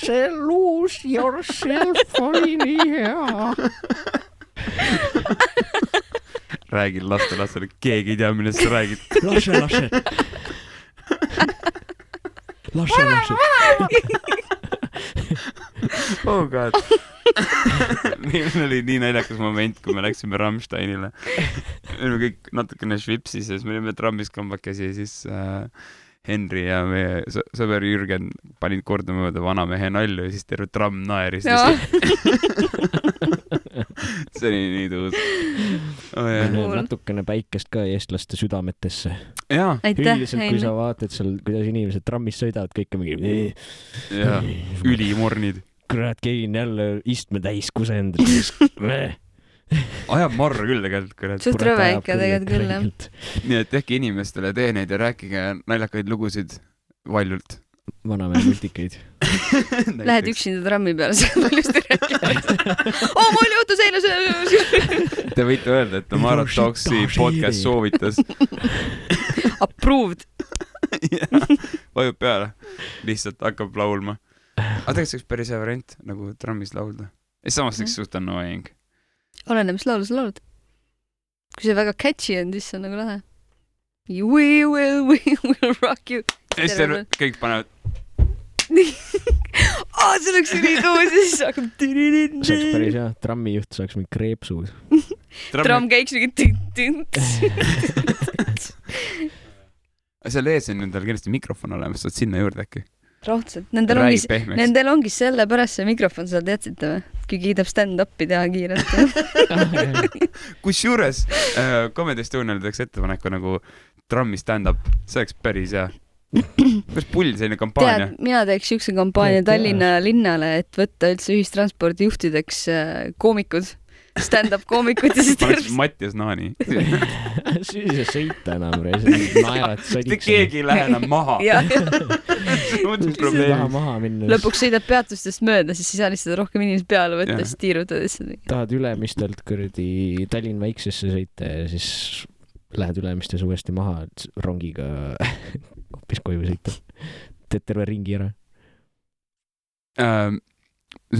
See lose yourself oli nii hea. Räägin lastele, keegi ei tea, millest sa räägid. Lase. Oh god. Meil oli nii naljakas moment, kui me läksime Rammsteinile. Me olime kõik natukene švipsis ja siis me olime trammis kambakesi ja siis Henri ja meie sõber Jürgen panid kordama mööda vanamehe nalju ja siis terve tramm naeris. See oli nii tuus. Natukene päikest ka eestlaste südametesse. Aitäh, kui sa vaatad seal, kuidas inimesed trammis sõidavad, kõik on mingi ülimornid. Kurat, keegi on jälle istme täis kusend. Ajab marra küll tegelikult. Suht rõve ikka tegelikult küll, jah. Nii et tehke inimestele teeneid ja rääkige naljakaid lugusid valjult. Vanamehe multikeid. Lähed üksinda trammi peale, sa paljusti rääkida. Mul juhtus eile see. Te võite öelda, et Tamara Talksi podcast soovitas. Approved. Vajub peale. Lihtsalt hakkab laulma. Aga tegelikult see oleks päris hea variant, nagu trammis laulda. Ja samas üks suht annoying. Oleneb, mis laulu sa laulad. Kui see väga catchy on, siis see on nagu lahe. We will rock you. Ja siis kõik panevad. See oleks nii tuus ja siis hakkab. See oleks päris hea. Trammijuht saaks mingi kreepsud. Tramm käiks mingi tint. Seal ees on nendel kindlasti mikrofon olemas, saad sinna juurde äkki. Raudselt. Nendel ongi sellepärast see mikrofon, sa teadsite või? Kui kiidab stand-upi teha kiirelt. Kusjuures Comedy Estonial teeks ettepaneku nagu trammi stand-up. See oleks päris hea. Päris pull selline kampaania. Tead, mina teeks siukse kampaania Tallinna linnale, et võtta üldse ühistranspordi juhtideks koomikud. Stand-up koomikud ja siis tervist. Mattias Naani. Siis ei sõita enam. Naerad sadiks. Keegi ei lähe enam maha. Lõpuks sõidab peatustest mööda, siis ei saa lihtsalt rohkem inimesed peale võtta, siis tiirutad. Tahad Ülemistelt kõrdi Tallinn väiksesse sõita ja siis lähed Ülemistes uuesti maha rongiga hoopis koju sõita. Teed terve ringi ära.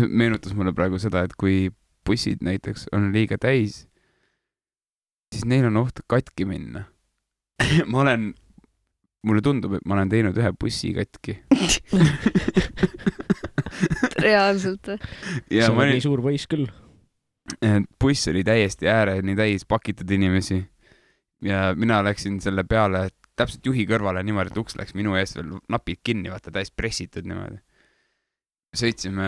Meenutas mulle praegu seda, et kui bussid näiteks on liiga täis, siis neil on oht katki minna. Mulle tundub, et ma olen teinud ühe bussi katki. Reaalselt või? See on nii suur võis küll. Buss oli täiesti ääreni täis pakitud inimesi ja mina läksin selle peale täpselt juhi kõrvale niimoodi, et uks läks minu ees veel napid kinni, vaata täis pressitud niimoodi. Sõitsime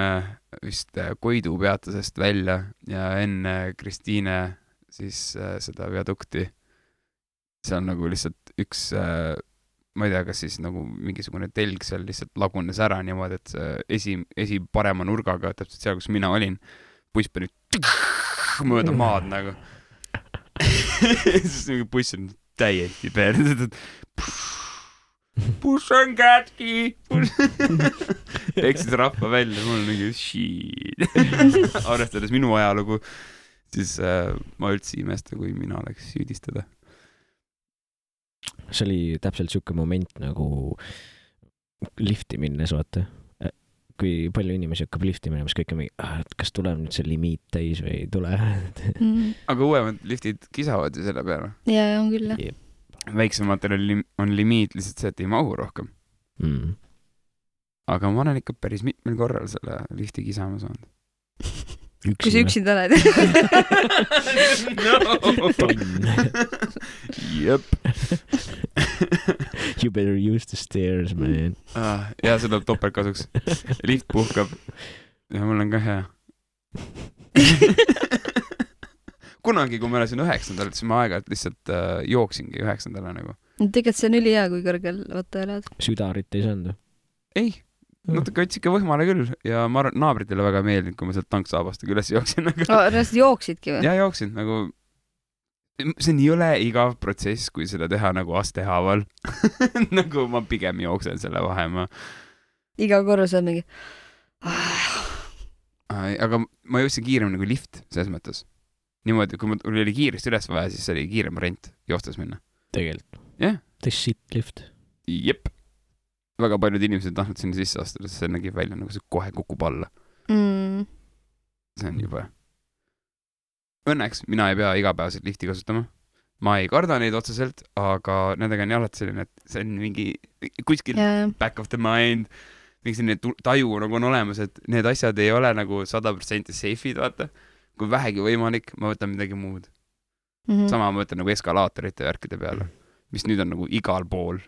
vist Koidu peatusest välja ja enne Kristiine siis seda viadukti. See on nagu lihtsalt üks, ma ei tea, kas siis nagu mingisugune telg seal lihtsalt lagunes ära niimoodi, et esi parema nurgaga, täpselt seal, kus mina olin, buss pani mööda maad nagu. Siis mingi buss on täiesti peale. Buss on kätki. Eksis rahva välja, mul on mingi shit. Arvestades minu ajalugu, siis ma üldse imesta, kui mina oleks süüdistada. See oli täpselt siuke moment nagu lifti minnes, vaata. Kui palju inimesi hakkab lifti minema, siis kõik on mingi, kas tuleb nüüd see limiit täis või ei tule. Aga uuemad liftid kisavad ju selle peale. Ja, on küll. Väiksematel on limiit lihtsalt see, et ei mahu rohkem. Aga ma olen ikka päris mitmel korral selle lifti kisama saanud. Kui sa üksinda oled. No. Jep. You better use the stairs, man. Ja see tuleb topeltkasuks. Lift puhkab. Ja mul on ka hea. Kunagi, kui ma elasin 9. siis ma aeg-ajalt lihtsalt jooksingi 9. nagu. Tegelikult see on ülihea, kui kõrgel vaata elad. Südarit ei saanud? Ei. Natuke võtsi ikka võhmale küll ja ma arvan, naabritele väga meeldinud, kui ma sealt tanksaabastega üles jooksin. Reaalselt jooksidki või? Ja jooksin, nagu see on jõle igav protsess, kui seda teha nagu astehaaval. Nagu ma pigem jooksen selle vahemaa. Iga korra saab mingi... Aga ma jõudsin kiiremini kui lift, selles mõttes. Niimoodi, kui mul oli kiiresti üles vaja, siis oli kiirem variant joostes minna. Tegelikult. Jah. The shit lift. Jep. Väga paljud inimesed tahtnud sinna sisse astuda, sest see nägi välja nagu see kohe kukub alla. See on juba... Õnneks mina ei pea igapäevaselt lifti kasutama. Ma ei karda neid otseselt, aga nendega on alati selline, et see on mingi kuskil back of the mind, mingi selline taju nagu on olemas, et need asjad ei ole nagu 100% safe'id, vaata. Kui vähegi võimalik, ma võtan midagi muud. Sama ma võtan nagu eskalaatorite värkide peale, mis nüüd on nagu igal pool.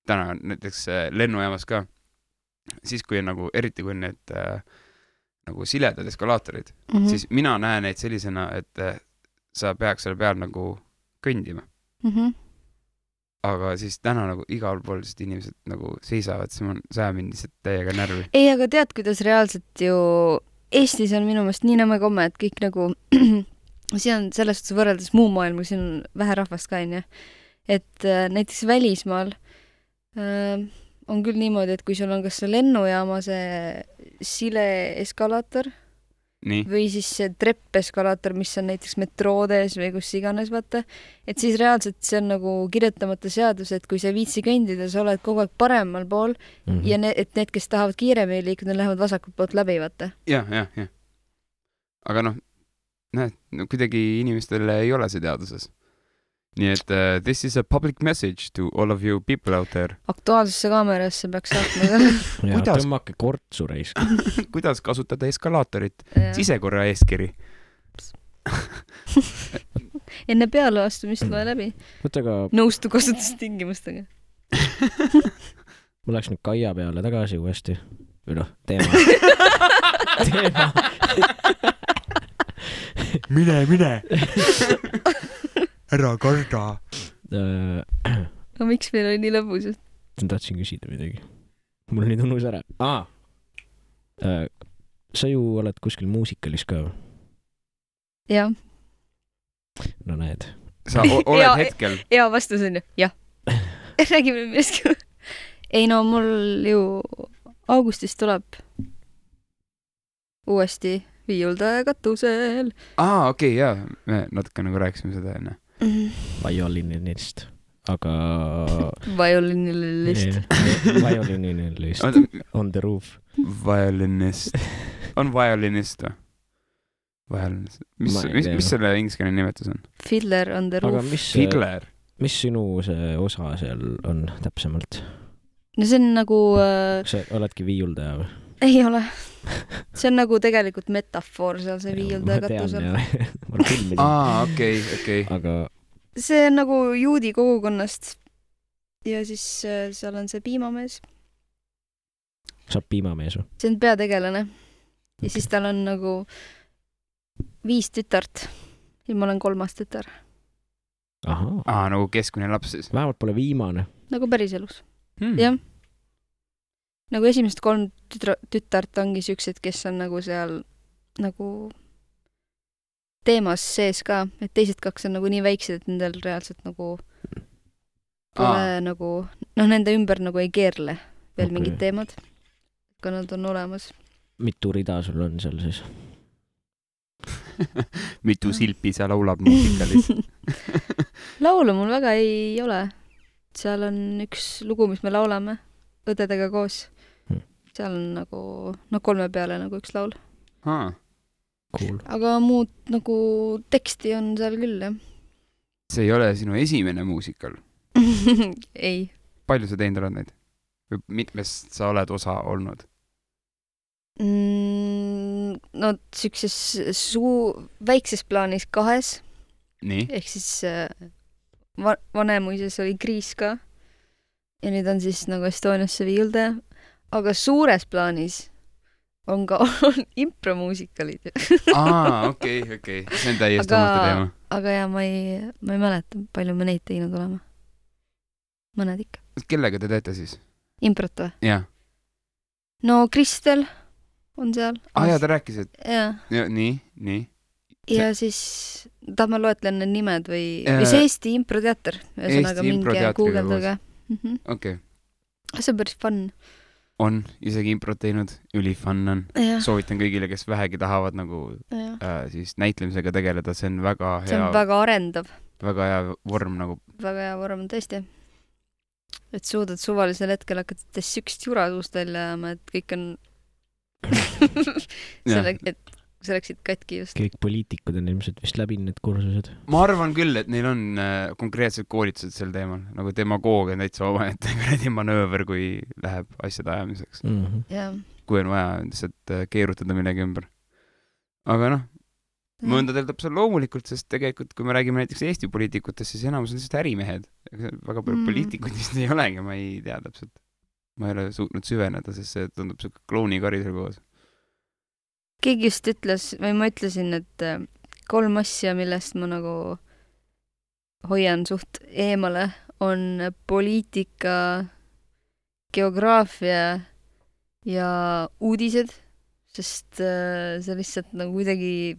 Täna näiteks lennujaamas ka. Siis kui on nagu, eriti kui on need nagu siledad eskalaatorid, siis mina näen neid sellisena, et sa peaks selle peal nagu kõndima. Aga siis täna nagu igal pool inimesed nagu seisavad, see ajab mind lihtsalt täiega närvi. Ei, aga tead, kuidas reaalselt ju Eestis on minu meelest nii nõmme komme, et kõik nagu siin on selles suhtes võrreldes muu maailma, siin on vähe rahvast ka, et näiteks välismaal on küll niimoodi, et kui sul on kas see lennujaama see sile eskalaator või siis see treppeskalaator, mis on näiteks metroodes või kus iganes, vaata, et siis reaalselt see on nagu kirjutamata seadus, et kui sa viitsi kõndida, sa oled kogu aeg paremal pool ja et need, kes tahavad kiiremini liikuda, lähevad vasakult poolt läbi, vaata. Jah. Aga näed, kuidagi inimestele ei ole see teaduses. Nii et this is a public message to all of you people out there. Aktuaalsesse kaamerasse peaks saatma. Ja tõmmake kortsu reis. Kuidas kasutada eskalaatorit? Sisekorra eeskiri. Enne peale astumist loe läbi. Nõustu kasutustingimustega. Ma läks nüüd Kaia peale tagasi uuesti. Või noh, teema. Mine. Ära karda. No miks meil oli nii lõbus? Ma tahtsin küsida midagi. Mul nüüd unus ära. Sa ju oled kuskil muusikalis ka? Jah. No näed. Sa oled hetkel? Ja vastus on ju, jah. Räägime millestki. Ei no, mul ju augustis tuleb uuesti viiuldaja katusel. Okei, jaa. Me natuke nagu rääkisime seda enne. Violinist, aga... Violinist. On the roof. Violinist. On violinist või? Violinist. Mis selle ingliskeelne nimetus on? Fiddler on the roof. Fiddler? Mis sinu see osa seal on täpsemalt? No see on nagu... Sa oledki viiuldaja või? Ei ole. See on nagu tegelikult metafoor seal see viiuldaja katusel. Okei. Aga... See on nagu juudi kogukonnast ja siis seal on see piimamees. Saab piimamees või? See on peategelane. Ja siis tal on nagu 5 tütart ja ma olen 3. tütar. Nagu keskmine laps siis? Vähemalt pole viimane. Nagu päris elus. Jah. Nagu esimesed 3 tütart ongi siuksed, kes on nagu seal nagu teemas sees ka, et teised 2 on nagu nii väiksed, et nendel reaalselt nagu pole nagu, nende ümber nagu ei keerle veel mingid teemad, kui nad on olemas. Mitu rida sul on seal siis? Mitu silpi sa laulab muusikalis? Laulu mul väga ei ole. Seal on üks lugu, mis me laulame õdedega koos. Seal on nagu, 3 peale nagu üks laul. Cool. Aga muud nagu teksti on seal küll, jah. See ei ole sinu esimene muusikal? Ei. Palju sa teinud oled neid? Või mitmest sa oled osa olnud? No siukses väikses plaanis 2. Nii? Ehk siis Vanemuises oli Kriis ka. Ja nüüd on siis nagu Estoniasse viiuldaja. Aga suures plaanis on ka impromuusikalid. Okei. See on täiesti omate teema. Aga jah, ma ei mäleta, palju me neid teinud olema. Mõned ikka. Kellega te teete siis? Improt või? Jah. No Kristel on seal. Jaa, ta rääkis, et... Jah. Nii. ja siis tahad ma loetlen need nimed või see Eesti improteater, ühesõnaga minge guugeldage. Okei. See on päris fun. On, isegi improt teinud, ülifun on. Soovitan kõigile, kes vähegi tahavad nagu siis näitlemisega tegeleda, see on väga hea. See on väga arendav. Väga hea vorm nagu. Väga hea vorm, tõesti. Et suudad suvalisel hetkel hakata sükst jura suust välja ajama, et kõik on et see läksid katki just. Kõik poliitikud on ilmselt vist läbi need kursused. Ma arvan küll, et neil on konkreetsed koolitused sel teemal, nagu demagoogia on täitsa omaette kuradi manööver, kui läheb asjade ajamiseks. Kui on vaja lihtsalt keerutada millegi ümber. Aga noh, mõndadel täpselt loomulikult, sest tegelikult, kui me räägime näiteks Eesti poliitikutest, siis enamus on lihtsalt ärimehed. Väga palju poliitikud vist ei olegi, ma ei tea täpselt. Ma ei ole suutnud süveneda, sest see tundub siuke klounikarisel koos. Keegi just ütles, või ma ütlesin, et 3 asja, millest ma nagu hoian suht eemale, on poliitika, geograafia ja uudised, sest see lihtsalt nagu kuidagi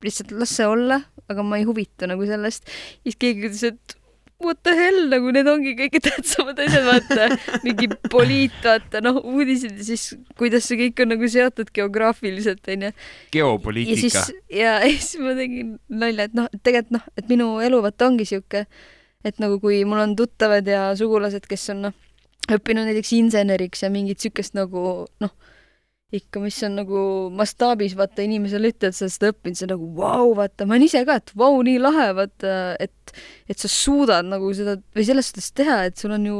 lihtsalt las see olla, aga ma ei huvitu nagu sellest. Siis keegi ütles, et what the hell, nagu need ongi kõige tähtsamad asjad, vaata, mingi vaata, uudised ja siis kuidas see kõik on nagu seotud geograafiliselt, on ju. Geopoliitika. Ja siis ma tegin nalja, et tegelikult et minu elu vaata ongi siuke, et nagu kui mul on tuttavad ja sugulased, kes on õppinud näiteks inseneriks ja mingit siukest nagu ikka, mis on nagu mastaabis, vaata, inimesele ütled, sa seda õppinud, see nagu vau, vaata, ma olen ise ka, et vau, nii lahe, vaata, et sa suudad nagu seda, või selles suhtes teha, et sul on ju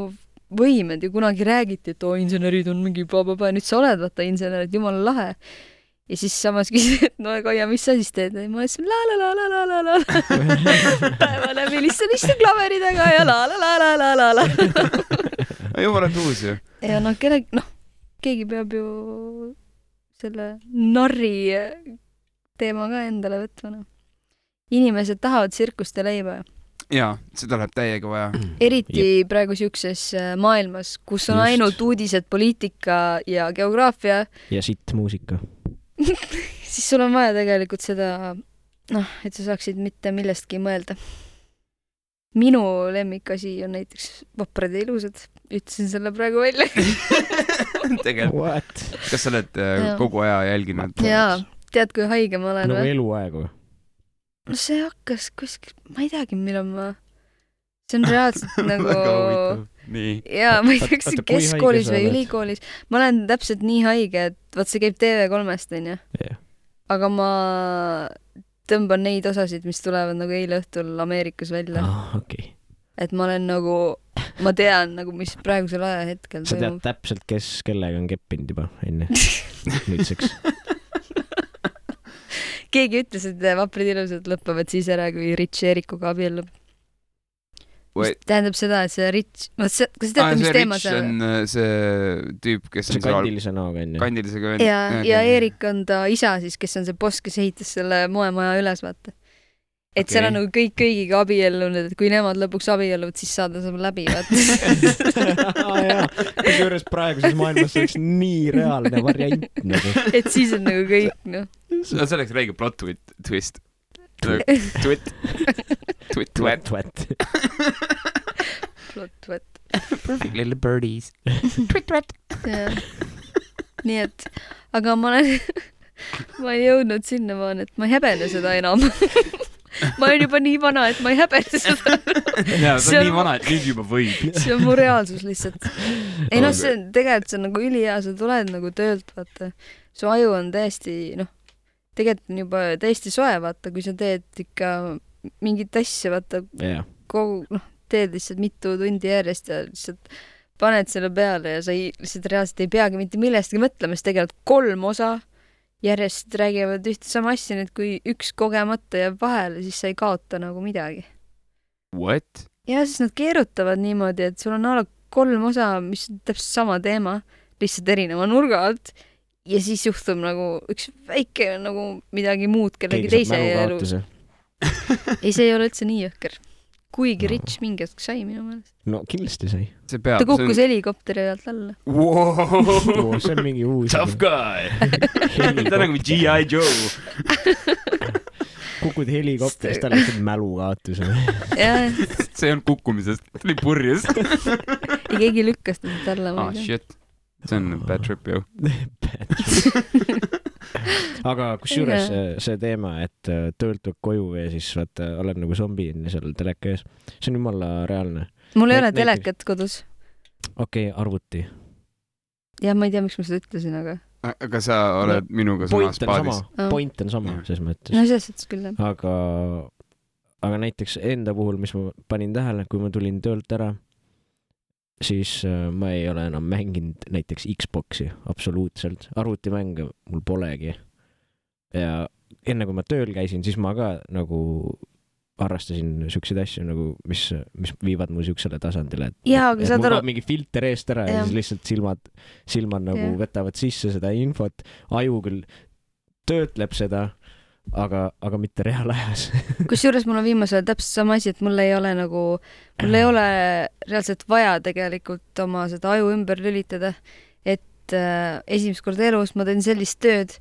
võimed ja kunagi räägiti, et insenerid on mingi nüüd sa oled, vaata, insenerid, jumala lahe. Ja siis samas küsid, et Kaia, mis sa siis teed? Ma ütlesin la päeva läbi lihtsalt istun klaveridega ja la. Jumala tuus ju. Ja keegi peab ju selle narri teema ka endale võtma. Inimesed tahavad tsirkust ja leiba. Jaa, seda läheb täiega vaja. Eriti praegu siukses maailmas, kus on ainult uudised, poliitika ja geograafia. Ja sitt muusika. Siis sul on vaja tegelikult seda, et sa saaksid mitte millestki mõelda. Minu lemmikasi on näiteks vaprad ja ilusad. Ütlesin selle praegu välja. Tegelikult. Kas sa oled kogu aja jälginud? Jaa, tead, kui haige ma olen? Nagu eluaegu. No see hakkas kuskil, ma ei teagi, millal ma... See on reaalselt nagu... Väga huvitav. Nii. Jaa, ma ei tea, kas see keskkoolis või ülikoolis. Ma olen täpselt nii haige, et vaat see käib TV3-st, on ju. Aga ma tõmban neid osasid, mis tulevad nagu eile õhtul Ameerikas välja. Okei. Et ma olen nagu, ma tean nagu, mis praegusel ajahetkel sa tead täpselt, kes kellega on keppinud juba enne nüüdseks. Keegi ütles, et vaprid ilusad lõpavad siis ära, kui Rich Erikuga abiellub. Tähendab seda, et see Rich, kas sa teate, mis teema see on? See tüüp, kes on kandilise näoga enne. Kandilise ja Erik on ta isa siis, kes on see boss, kes ehitas selle moemaja üles, vaata. Et seal on nagu kõik kõigiga abiellunud, et kui nemad lõpuks abielluvad, siis saada saab läbi, vaata. Kusjuures praeguses maailmas oleks nii reaalne variant nagu. Et siis on nagu kõik, See oleks räige plot twist. Twit. Plot twit. Perfect little birdies. Twit. Nii et, aga ma olen jõudnud sinnamaani, et ma ei häbene seda enam. Ma olen juba nii vana, et ma ei häbene seda. Jaa, see on nii vana, et nüüd juba võib. See on mu reaalsus lihtsalt. Ei see on tegelikult see on nagu ülihea, sa tuled nagu töölt, vaata. Su aju on täiesti, tegelikult on juba täiesti soe, vaata, kui sa teed ikka mingit asja, vaata, teed lihtsalt mitu tundi järjest ja lihtsalt paned selle peale ja sa lihtsalt reaalselt ei peagi mitte millestki mõtlema, sest tegelikult 3 osa järjest räägivad ühte sama asja, nüüd kui üks kogemata jääb vahele, siis sa ei kaota nagu midagi. What? Ja siis nad keerutavad niimoodi, et sul on 3 osa, mis on täpselt sama teema, lihtsalt erineva nurga alt ja siis juhtub nagu üks väike nagu midagi muud kellegi teise elus. Ei, see ei ole üldse nii jõhker. Kuigi Rich mingi hetk sai minu meelest. No kindlasti sai. Ta kukkus helikopteri alt alla. Wow. See on mingi uus. Tough guy. Ta nagu G.I. Joe. kukud helikopterist, tal lihtsalt mälukaotus. See on kukkumisest, tuli purjus. Ja keegi lükkas ta siit alla. Shit. See on bad trip, ju. Aga kusjuures see teema, et töölt tuleb koju ja siis vaata, oled nagu zombi seal teleka ees. See on jumala reaalne. Mul ei ole telekat kodus. Okei, arvuti. Ja ma ei tea, miks ma seda ütlesin, aga sa oled minuga samas paadis. Point on sama, ses mõttes. No selles mõttes küll, jah. Aga näiteks enda puhul, mis ma panin tähele, kui ma tulin töölt ära, siis ma ei ole enam mänginud näiteks Xboxi absoluutselt. Arvutimänge mul polegi. Ja enne kui ma tööl käisin, siis ma ka nagu harrastasin siukseid asju, nagu, mis viivad mu siuksele tasandile. Et mul ka mingi filter eest ära ja siis lihtsalt silmad nagu võtavad sisse seda infot. Aju küll töötleb seda, aga mitte reaalajas. Kusjuures mul on viimasel täpselt sama asi, et mul ei ole reaalselt vaja tegelikult oma seda aju ümber lülitada, et esimest korda elus ma teen sellist tööd,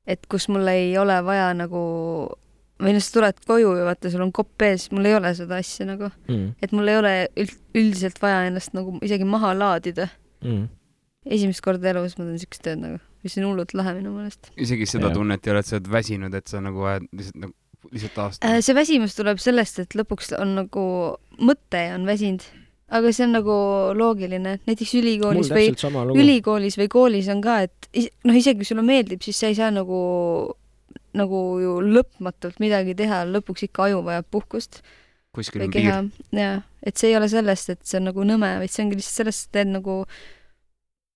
et kus mul ei ole vaja nagu, või sa tuled koju ja vaata, sul on kopp ees, mul ei ole seda asja nagu, et mul ei ole üldiselt vaja ennast nagu isegi maha laadida. Esimest korda elus ma teen siukest tööd nagu, mis on hullult lahe minu mõelest. Isegi seda tunnet ei ole, et sa oled väsinud, et sa nagu lihtsalt aastane. See väsimus tuleb sellest, et lõpuks on nagu mõte on väsinud, aga see on nagu loogiline. Näiteks ülikoolis või koolis on ka, et isegi kui sulle meeldib, siis sa ei saa nagu ju lõpmatult midagi teha, lõpuks ikka aju vajab puhkust. Kuskil on piir. Ja, et see ei ole sellest, et see on nagu nõme, vaid see ongi lihtsalt sellest, et teed nagu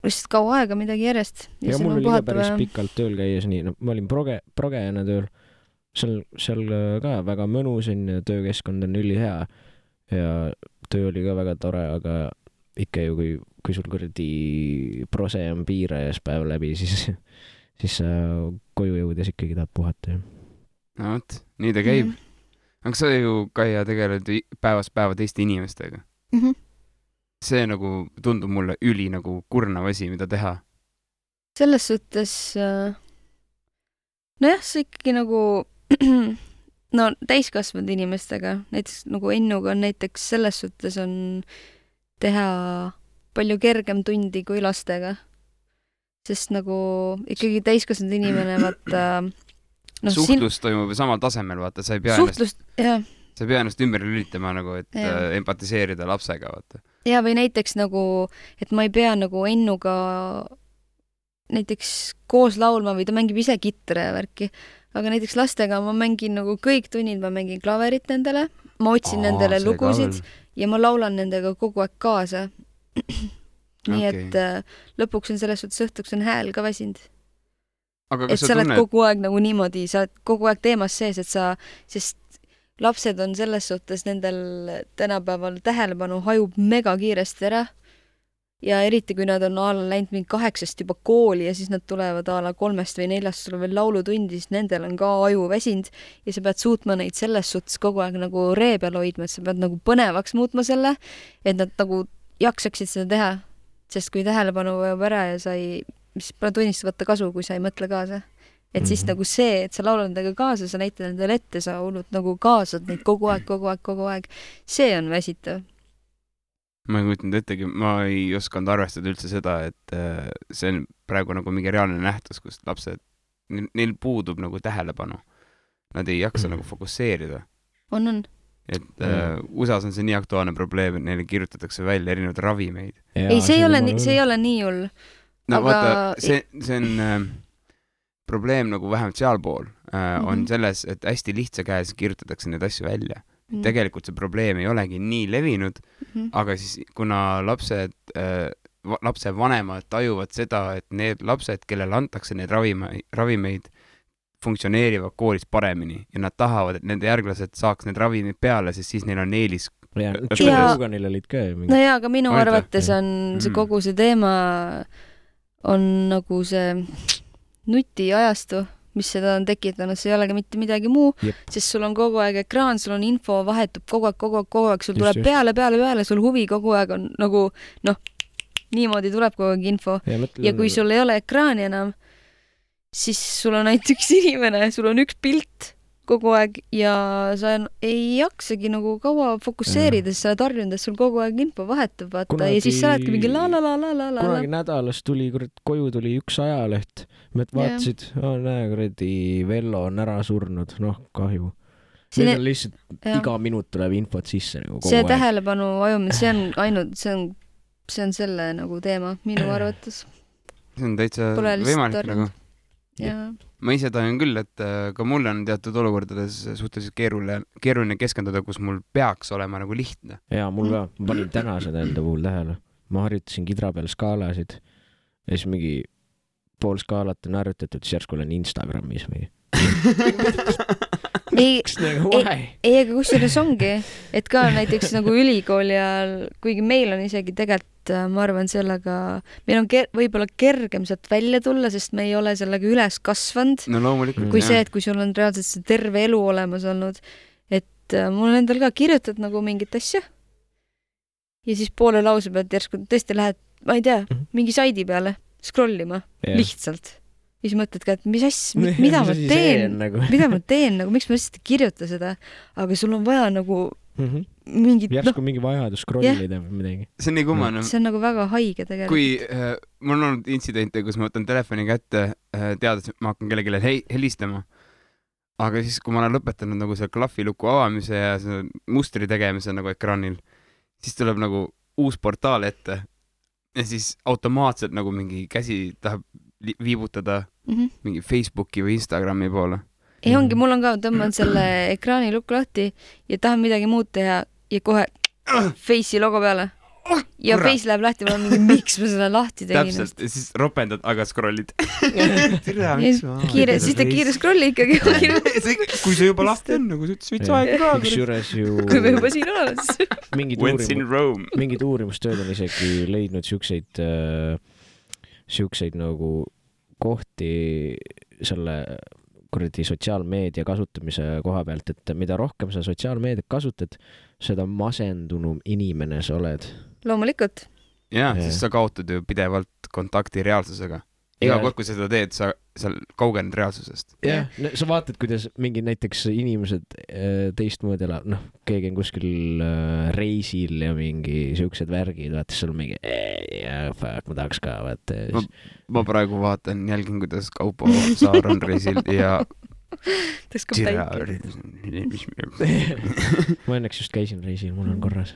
lihtsalt kaua aega midagi järjest. Ja mul oli ka päris pikalt tööl käies nii, ma olin progejana tööl, seal ka väga mõnus on ja töökeskkond on ülihea ja töö oli ka väga tore, aga ikka ju, kui sul kuradi prose on piirajas päev läbi, siis koju jõudes ikkagi tahad puhata. No võt, nii ta käib. Aga sa ju Kaia tegeled päevast päeva teiste inimestega. See nagu tundub mulle üli nagu kurnav asi, mida teha. Selles suhtes, nojah, see ikkagi nagu täiskasvanud inimestega, näiteks nagu Ennuga on näiteks selles suhtes on teha palju kergem tundi kui lastega. Sest nagu ikkagi täiskasvanud inimene, vaata... Suhtlus toimub samal tasemel, vaata, sa ei pea ennast ümber lülitama nagu, et empatiseerida lapsega, vaata. Ja või näiteks nagu, et ma ei pea nagu Ennuga näiteks koos laulma või ta mängib ise kitre ja värki, aga näiteks lastega ma mängin nagu kõik tunnid, ma mängin klaverit nendele, ma otsin nendele lugusid ja ma laulan nendega kogu aeg kaasa. Nii et lõpuks on selles suhtes õhtuks on hääl ka väsinud. Et sa oled kogu aeg nagu niimoodi, sa oled kogu aeg teemas sees, sest lapsed on selles suhtes nendel tänapäeval tähelepanu hajub mega kiiresti ära ja eriti kui nad on läinud mingi 8 juba kooli ja siis nad tulevad 3 või 4 sul veel laulutundi, siis nendel on ka aju väsinud ja sa pead suutma neid selles suhtes kogu aeg nagu ree peal hoidma, et sa pead nagu põnevaks muutma selle, et nad nagu jaksaksid seda teha, sest kui tähelepanu vajab ära ja siis pole tunnist võtta kasu, kui sa ei mõtle kaasa. Et siis nagu see, et sa laulad nendega kaasa, sa näitad nendele ette, sa hullult nagu kaasad neid kogu aeg. See on väsitav. Ma ei kujutanud ettegi, ma ei osanud arvestada üldse seda, et see on praegu nagu mingi reaalne nähtus, kus lapsed, neil puudub nagu tähelepanu. Nad ei jaksa nagu fokusseerida. On. Et USAs on see nii aktuaalne probleem, et neile kirjutatakse välja erinevad ravimeid. Ei, see ei ole nii hull. No vaata, see on probleem nagu vähemalt sealpool on selles, et hästi lihtsa käes kirjutatakse need asju välja. Tegelikult see probleem ei olegi nii levinud, aga siis kuna lapse vanemad tajuvad seda, et need lapsed, kellele antakse need ravimeid, funktsioneerivad koolis paremini ja nad tahavad, et nende järglased saaks need ravimid peale, sest siis neil on eelis. Joe olid ka. No jaa, aga minu arvates on see kogu see teema on nagu see nutiajastu, mis seda on tekitanud, see ei olegi mitte midagi muu, sest sul on kogu aeg ekraan, sul on info, vahetub kogu aeg, sul tuleb peale, sul huvi kogu aeg on nagu, niimoodi tuleb kogu aeg info. Ja kui sul ei ole ekraani enam, siis sul on näiteks inimene, sul on üks pilt kogu aeg ja sa ei jaksagi nagu kaua fokusseerida, sest sa oled harjunud, et sul kogu aeg info vahetub, vaata, ja siis sa oledki mingi la. Kunagi nädalas tuli, koju tuli üks ajaleht, mõt vaatasid, näe, kuradi Vello on ära surnud, kahju. Need on lihtsalt iga minut tuleb infot sisse nagu kogu see aeg. tähelepanu ajumine, see on ainult, see on selle nagu teema minu arvates. See on täitsa võimalik nagu. Ma ise tahan küll, et ka mul on teatud olukordades suhteliselt keeruline keskenduda, kus mul peaks olema nagu lihtne. Jaa, mul ka. Ma panin täna seda enda puhul tähele. Ma harjutasin kidra peal skaalasid ja siis mingi pool skaalat on harjutatud, siis järsku olen Instagramis või. Aga kusjuures ongi, et ka näiteks nagu ülikooli ajal, kuigi meil on isegi tegelikult, ma arvan sellega, meil on võib-olla kergem sealt välja tulla, sest me ei ole sellega üles kasvanud. No loomulikult. Kui see, et kui sul on reaalselt see terve elu olemas olnud, et mul endal ka kirjutad nagu mingit asja ja siis poole lause pealt järsku tõesti lähed, ma ei tea, mingi saidi peale scrollima, lihtsalt. Ja siis mõtled ka, et mida ma teen, miks ma lihtsalt ei kirjuta seda, aga sul on vaja nagu mingit... Järsku mingi vajadus scrollida või midagi. See on nii kummane. See on nagu väga haige tegelikult. Kui mul on olnud intsidente, kus ma võtan telefoni kätte, teades, et ma hakkan kellelegi helistama, aga siis, kui ma olen lõpetanud nagu selle klahviluku avamise ja selle mustri tegemise nagu ekraanil, siis tuleb nagu uus portaal ette ja siis automaatselt nagu mingi käsi tahab viibutada mingi Facebooki või Instagrami poole. Ei ongi, mul on ka, tõmban selle ekraani lukku lahti ja tahan midagi muud teha ja kohe Face'i logo peale. Ja Face läheb lahti, ma olen mingi, miks ma selle lahti tegin. Täpselt, ja siis ropendad, aga scrollid. Siis ta kiire scrolli ikkagi. Kui see juba lahti on, nagu võts aega ka. Kui me juba siin oleme. Mingid uurimustööd on isegi leidnud siukseid nagu kohti selle kuradi sotsiaalmeedia kasutamise koha pealt, et mida rohkem sa sotsiaalmeediat kasutad, seda masendunum inimene sa oled. Loomulikult. Jah, siis sa kaotad ju pidevalt kontakti reaalsusega. Iga kord, kui sa seda teed, sa kaugened reaalsusest. Jah, sa vaatad, kuidas mingi näiteks inimesed teistmoodi elab, keegi on kuskil reisil ja mingi siuksed värgid, vaata, seal mingi ma tahaks ka, vaata. Ma praegu vaatan, jälgin, kuidas Kaupo Saar on reisil ja ma õnneks just käisin reisil, mul on korras.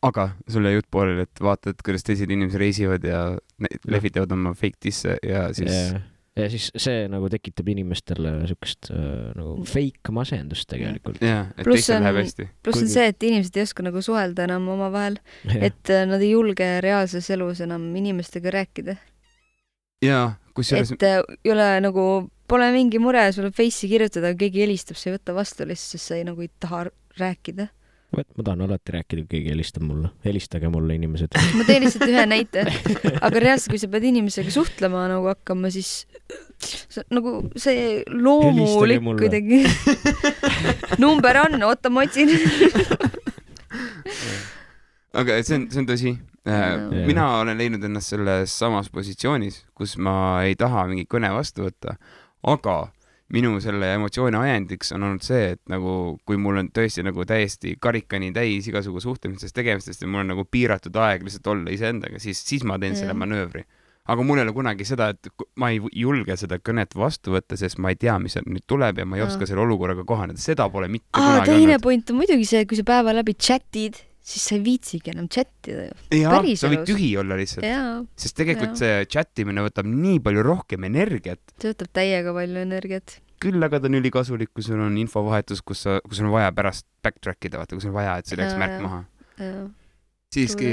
Aga sulle jutt poolel, et vaatad, kuidas teised inimesed reisivad ja lehvitavad oma fake disse ja siis... Ja siis see nagu tekitab inimestele siukest nagu fake masendust tegelikult. Jah, et teistel läheb hästi. Pluss on see, et inimesed ei oska nagu suhelda enam oma vahel, et nad ei julge reaalses elus enam inimestega rääkida. Jaa, kusjuures... Et ei ole nagu, pole mingi mure sulle Face'i kirjutada, keegi helistab, sa ei võta vastu lihtsalt, sest sa ei nagu ei taha rääkida. Ma tahan alati rääkida, kui keegi helistab mulle. Helistage mulle, inimesed. Ma teen lihtsalt ühe näite. Aga reaalselt, kui sa pead inimesega suhtlema nagu hakkama, siis nagu see loomulik kuidagi. Number on, oota, ma otsin. Aga see on tõsi. Mina olen leidnud ennast selles samas positsioonis, kus ma ei taha mingi kõne vastu võtta, aga minu selle emotsiooni ajendiks on olnud see, et nagu, kui mul on tõesti nagu täiesti karikani täis igasugu suhtlemisest tegemistest ja mul on nagu piiratud aeg lihtsalt olla iseendaga, siis ma teen selle manöövri. Aga mul ei ole kunagi seda, et ma ei julge seda kõnet vastu võtta, sest ma ei tea, mis nüüd tuleb ja ma ei oska selle olukorraga kohaneda. Seda pole mitte kunagi teine olnud. Point on muidugi see, et kui sa päeva läbi chatid, siis sa ei viitsigi enam chattida. Jaa, sa võid tühi olla lihtsalt. Sest tegelikult see chattimine võtab nii palju rohkem energiat. See võtab täiega palju energiat. Küll aga ta on ülikasulik, kui sul on infovahetus, kus on vaja pärast backtrackida, vaata, kui sul on vaja, et see läks märk maha. Siiski,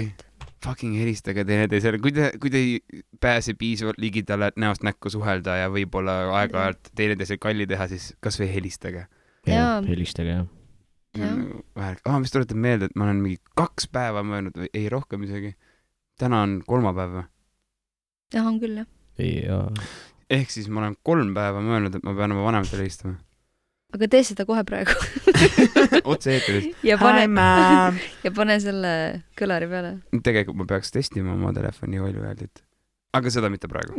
fucking helistage teineteisele. Kui te ei pääse piisavalt ligidale näost näkku suhelda ja võib-olla aeg-ajalt teineteisele kalli teha, siis kas või helistage. Helistage, jah. Mis tuletab meelde, et ma olen mingi 2 päeva möönud või ei rohkem isegi. Täna on 3 päeva. Jah, on küll, jah. Ehk siis ma olen 3 päeva möönud, et ma pean oma vanematele helistama. Aga tee seda kohe praegu. Otse eetris. Ja pane selle kõlari peale. Tegelikult ma peaks testima oma telefoni valjuhääldit. Aga seda mitte praegu.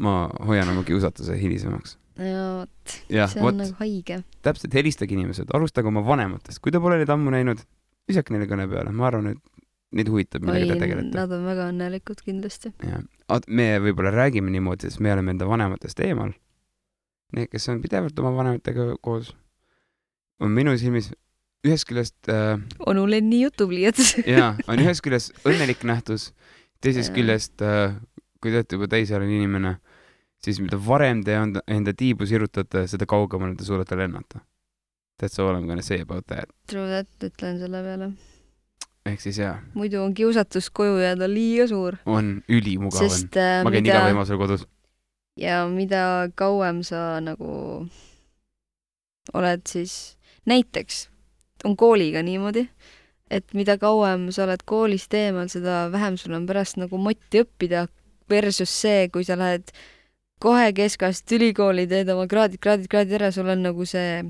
Ma hoian oma kiusatuse hilisemaks. ja vot, jah, see on vot, nagu haige. täpselt, helistage inimesed, alustage oma vanematest. Kui te pole neid ammu näinud, visake neile kõne peale. Ma arvan, et neid huvitab, millega te tegelete. Nad on väga õnnelikud kindlasti. Ja. Me võib-olla räägime niimoodi, sest me oleme enda vanematest eemal. Need, kes on pidevalt oma vanematega koos, on minu silmis ühest küljest Onu Lenni jutupliiats. jaa, on ühest küljest õnnelik nähtus, teisest küljest, kui te olete juba täisealine inimene, siis mida varem te enda tiibu sirutate, seda kaugemale te suudate lennata. That's all I'm gonna say about that. True that, ütlen selle peale. Ehk siis jaa. Muidu on kiusatus koju jääda liiga suur. On ülimugav. Sest, ma käin iga võimalusel kodus. Ja mida kauem sa nagu oled siis, näiteks on kooliga niimoodi, et mida kauem sa oled koolist eemal, seda vähem sul on pärast nagu motti õppida versus see, kui sa lähed kohe keskast ülikooli, teed oma kraadid ära, sul on nagu see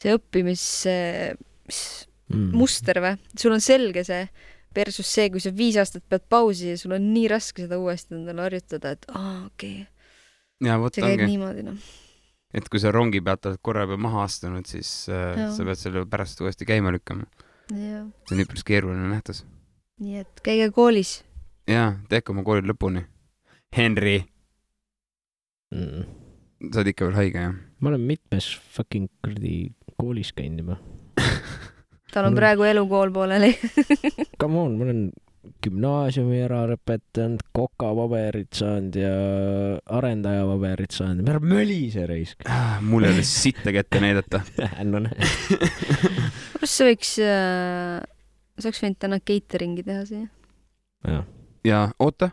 õppimismuster või? Sul on selge see versus see, kui sa 5 aastat pead pausi ja sul on nii raske seda uuesti endale harjutada, et okei. See käib niimoodi, noh. Et kui sa rongi pealt oled korra juba maha astunud, siis sa pead selle pärast uuesti käima lükkama. Ja. See on üpris keeruline nähtus. Nii et käige koolis. Jaa, teeke oma kooli lõpuni. Henry! Sa oled ikka veel haige, jah? Ma olen mitmes fucking koolis käinud juba. Tal on praegu elukool pooleli. Come on, ma olen gümnaasiumi ära lõpetanud, kokapaberit saanud ja arendajapaberit saanud. Ma olen mölise raisk. Mul ei ole sitte kätte näidata. No näed. Kus sa võiks võinud täna cateringi teha siia? Ja oota,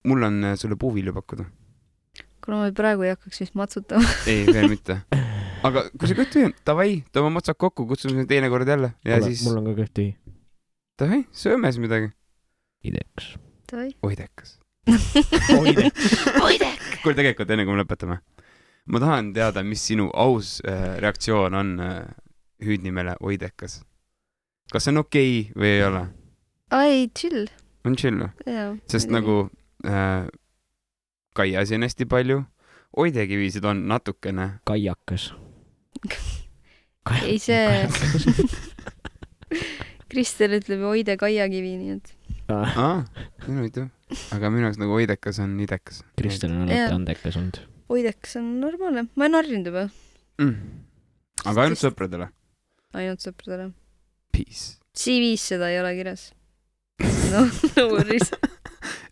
mul on sulle puuvilju pakkuda. Kuna ma praegu ei hakkaks vist matsutama. Ei, veel mitte. Aga kui sa kõht tühi, davai, toome matsad kokku, kutsume teine kord jälle. Ja siis... Mul on ka kõht tühi. Davai, sööme siis midagi. Idekas. Oidekas. Oidekas. Kuule tegelikult, enne kui me lõpetame. Ma tahan teada, mis sinu aus reaktsioon on hüüdnimele Oidekas. Kas see on okei või ei ole? Ai, chill. On chill või? Sest nagu Kaiasi on hästi palju. Oidekivisid on natukene. Kaiakas. Ei see... Kristel ütleb Oide Kaiakivi, nii et... Minu ütleb. Aga minu jaoks nagu Oidekas on idekas. Kristel on alati andekas olnud. Oidekas on normaalne. Ma ei narrinud juba. Aga ainult sõpradele? Ainult sõpradele. Peace. CV-s seda ei ole kirjas. No worries.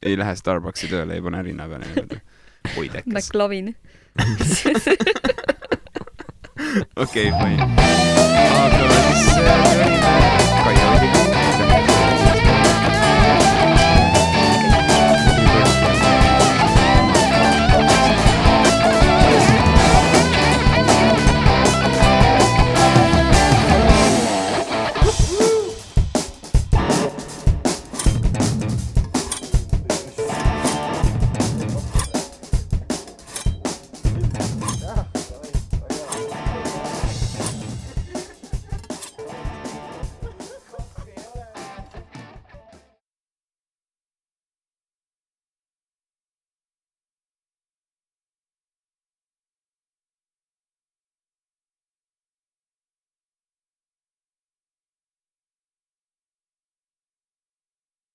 Ei lähe Starbucksi tööle, ei pane rinna peale. Oidekas. McLovin. Okei, fine. Aga siis...